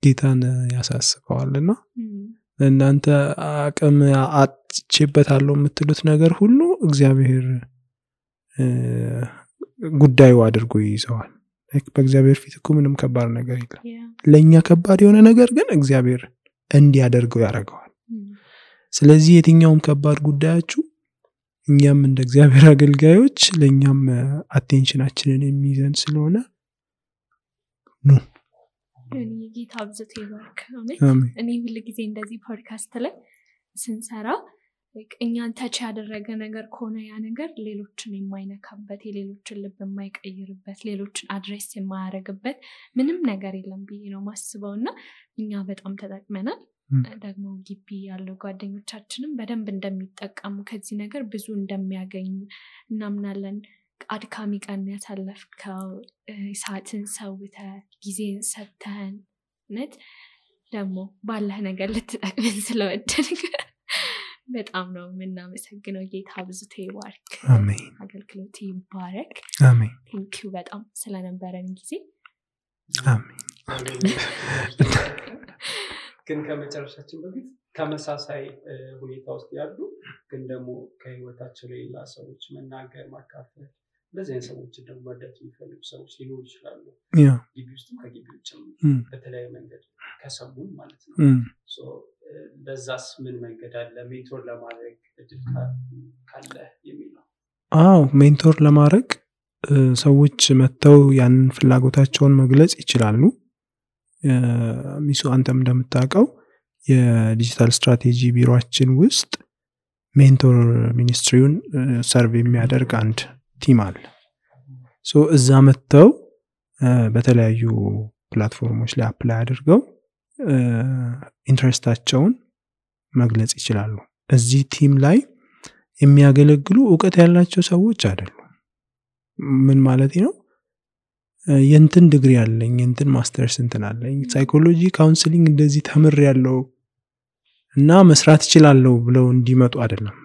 ጌታን ያሳስበዋልና እናንተ አቅም አጥቼበታለሁ የምትሉት ነገር ሁሉ እግዚአብሔር ጉዳዩ አድርጎ ይይዘዋል በእግዚአብሔር ፊት እኮ ምንም ከባድ ነገር የለም ለኛ ከባድ የሆነ ነገር ግን እግዚአብሔር እንዲያደርገው ያደርገዋል ስለዚህ የትኛውም ከባድ ጉዳያችሁ እኛም እንደ እግዚአብሔር አገልጋዮች ለኛም አቴንሽናችንን የሚይዘን ስለሆነ ነው ጌታ አብዝቶ ይባርክ እኔ ሁሉ ጊዜ እንደዚህ ፖድካስት ላይ ስንሰራ እኛን ታች ያደረገ ነገር ከሆነ ያ ነገር ሌሎችን የማይነካበት የሌሎችን ልብ የማይቀይርበት ሌሎችን አድሬስ የማያደርግበት ምንም ነገር የለም ብዬ ነው ማስበውና እኛ በጣም ተጠቅመናል ደግሞ ግቢ ያለው ጓደኞቻችንም በደንብ እንደሚጠቀሙ ከዚህ ነገር ብዙ እንደሚያገኙ እናምናለን አድካሚ ቀን ያሳለፍከው ሰዓትን ሰውተህ ጊዜን ሰጥተህን ነት ደግሞ ባለህ ነገር ልትጠቅመን ስለወደድክ በጣም ነው የምናመሰግነው ጌታ አብዝቶ ይባርክ አሜን አገልግሎት ይባረክ አሜን ቴንኪው በጣም ስለነበረን ጊዜ አሜን ግን ከመጨረሻችን በፊት ተመሳሳይ ሁኔታ ውስጥ ያሉ ግን ደግሞ ከህይወታቸው ሌላ ሰዎች መናገር ማካፈል እንደዚህ አይነት ሰዎች ደግሞ መርዳት የሚፈልጉ ሰዎች ሊኖሩ ይችላሉ ግቢ ውስጥም ከግቢ ውጭም በተለያየ መንገድ ከሰሙን ማለት ነው በዛስ ምን መንገድ አለ ሜንቶር ለማድረግ እድል ካለ የሚለው ሜንቶር ለማድረግ ሰዎች መተው ያንን ፍላጎታቸውን መግለጽ ይችላሉ ሚሱ አንተም እንደምታውቀው የዲጂታል ስትራቴጂ ቢሮአችን ውስጥ ሜንቶር ሚኒስትሪውን ሰርቭ የሚያደርግ አንድ ቲም አለ እዛ መተው በተለያዩ ፕላትፎርሞች ላይ አፕላይ አድርገው ኢንትረስታቸውን መግለጽ ይችላሉ እዚህ ቲም ላይ የሚያገለግሉ ዕውቀት ያላቸው ሰዎች አይደሉም። ምን ማለት ነው? የንትን ዲግሪ አለኝ የንትን ማስተርስ እንትን አለኝ ሳይኮሎጂ ካውንስሊንግ እንደዚህ ተምር ያለው እና መስራት ይችላልው ብለው እንዲመጡ አይደለም።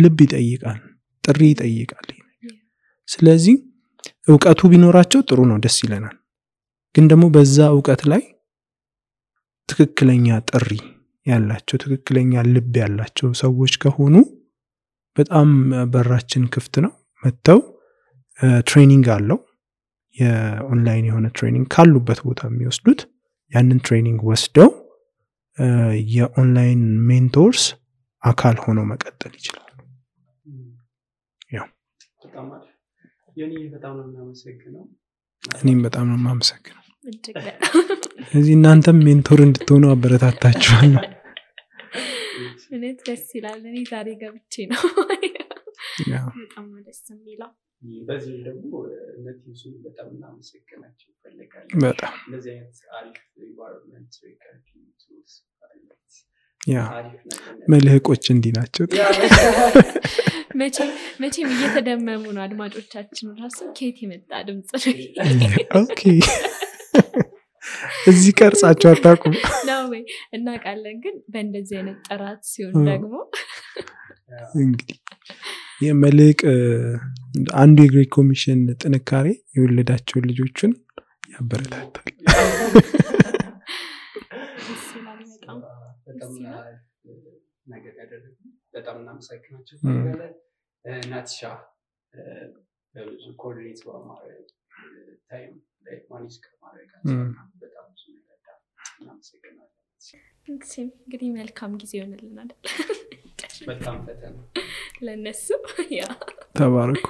ልብ ይጠይቃል፣ ጥሪ ይጠይቃል። ስለዚህ ዕውቀቱ ቢኖራቸው ጥሩ ነው፣ ደስ ይለናል። ግን ደግሞ በዛ ዕውቀት ላይ ትክክለኛ ጥሪ ያላቸው ትክክለኛ ልብ ያላቸው ሰዎች ከሆኑ በጣም በራችን ክፍት ነው። መተው ትሬኒንግ አለው፣ የኦንላይን የሆነ ትሬኒንግ ካሉበት ቦታ የሚወስዱት ያንን ትሬኒንግ ወስደው የኦንላይን ሜንቶርስ አካል ሆነው መቀጠል ይችላሉ። ያው በጣም ነው የማመሰግነው። እኔም በጣም ነው የማመሰግነው። ስለዚህ እናንተም ሜንቶር እንድትሆኑ አበረታታችኋለሁ። እኔት ደስ ይላል። እኔ ዛሬ ገብቼ ነው በጣም ደስ የሚለው። በዚህ ደግሞ እነዚህን በጣም እናመሰግናቸው ይፈልጋል። በጣም እንደዚህ አይነት አሪፍ ኢንቫይሮንመንት ሪከርዲንግ ቱልስ መልህቆች እንዲህ ናቸው። መቼም እየተደመሙ ነው አድማጮቻችን ራሱ ከየት የመጣ ድምጽ ኦኬ እዚህ ቀርጻቸው አታውቁም ነው ወይ? እናውቃለን፣ ግን በእንደዚህ አይነት ጥራት ሲሆን ደግሞ እንግዲህ የመልህቅ አንዱ የግሬት ኮሚሽን ጥንካሬ የወለዳቸውን ልጆችን ያበረታታል። ነገር ያደረጉ በጣም እናመሰግናቸው። ናትሻ በብዙ ኮርዲኔት በማድረግ ታይም ላይ ማኔጅ ከማድረጋቸው በጣም ብዙ ነገር እናመሰግናለን። እንግዲህ መልካም ጊዜ ይሆንልናል። በጣም ፈተና ለነሱ ያ ተባረኩ።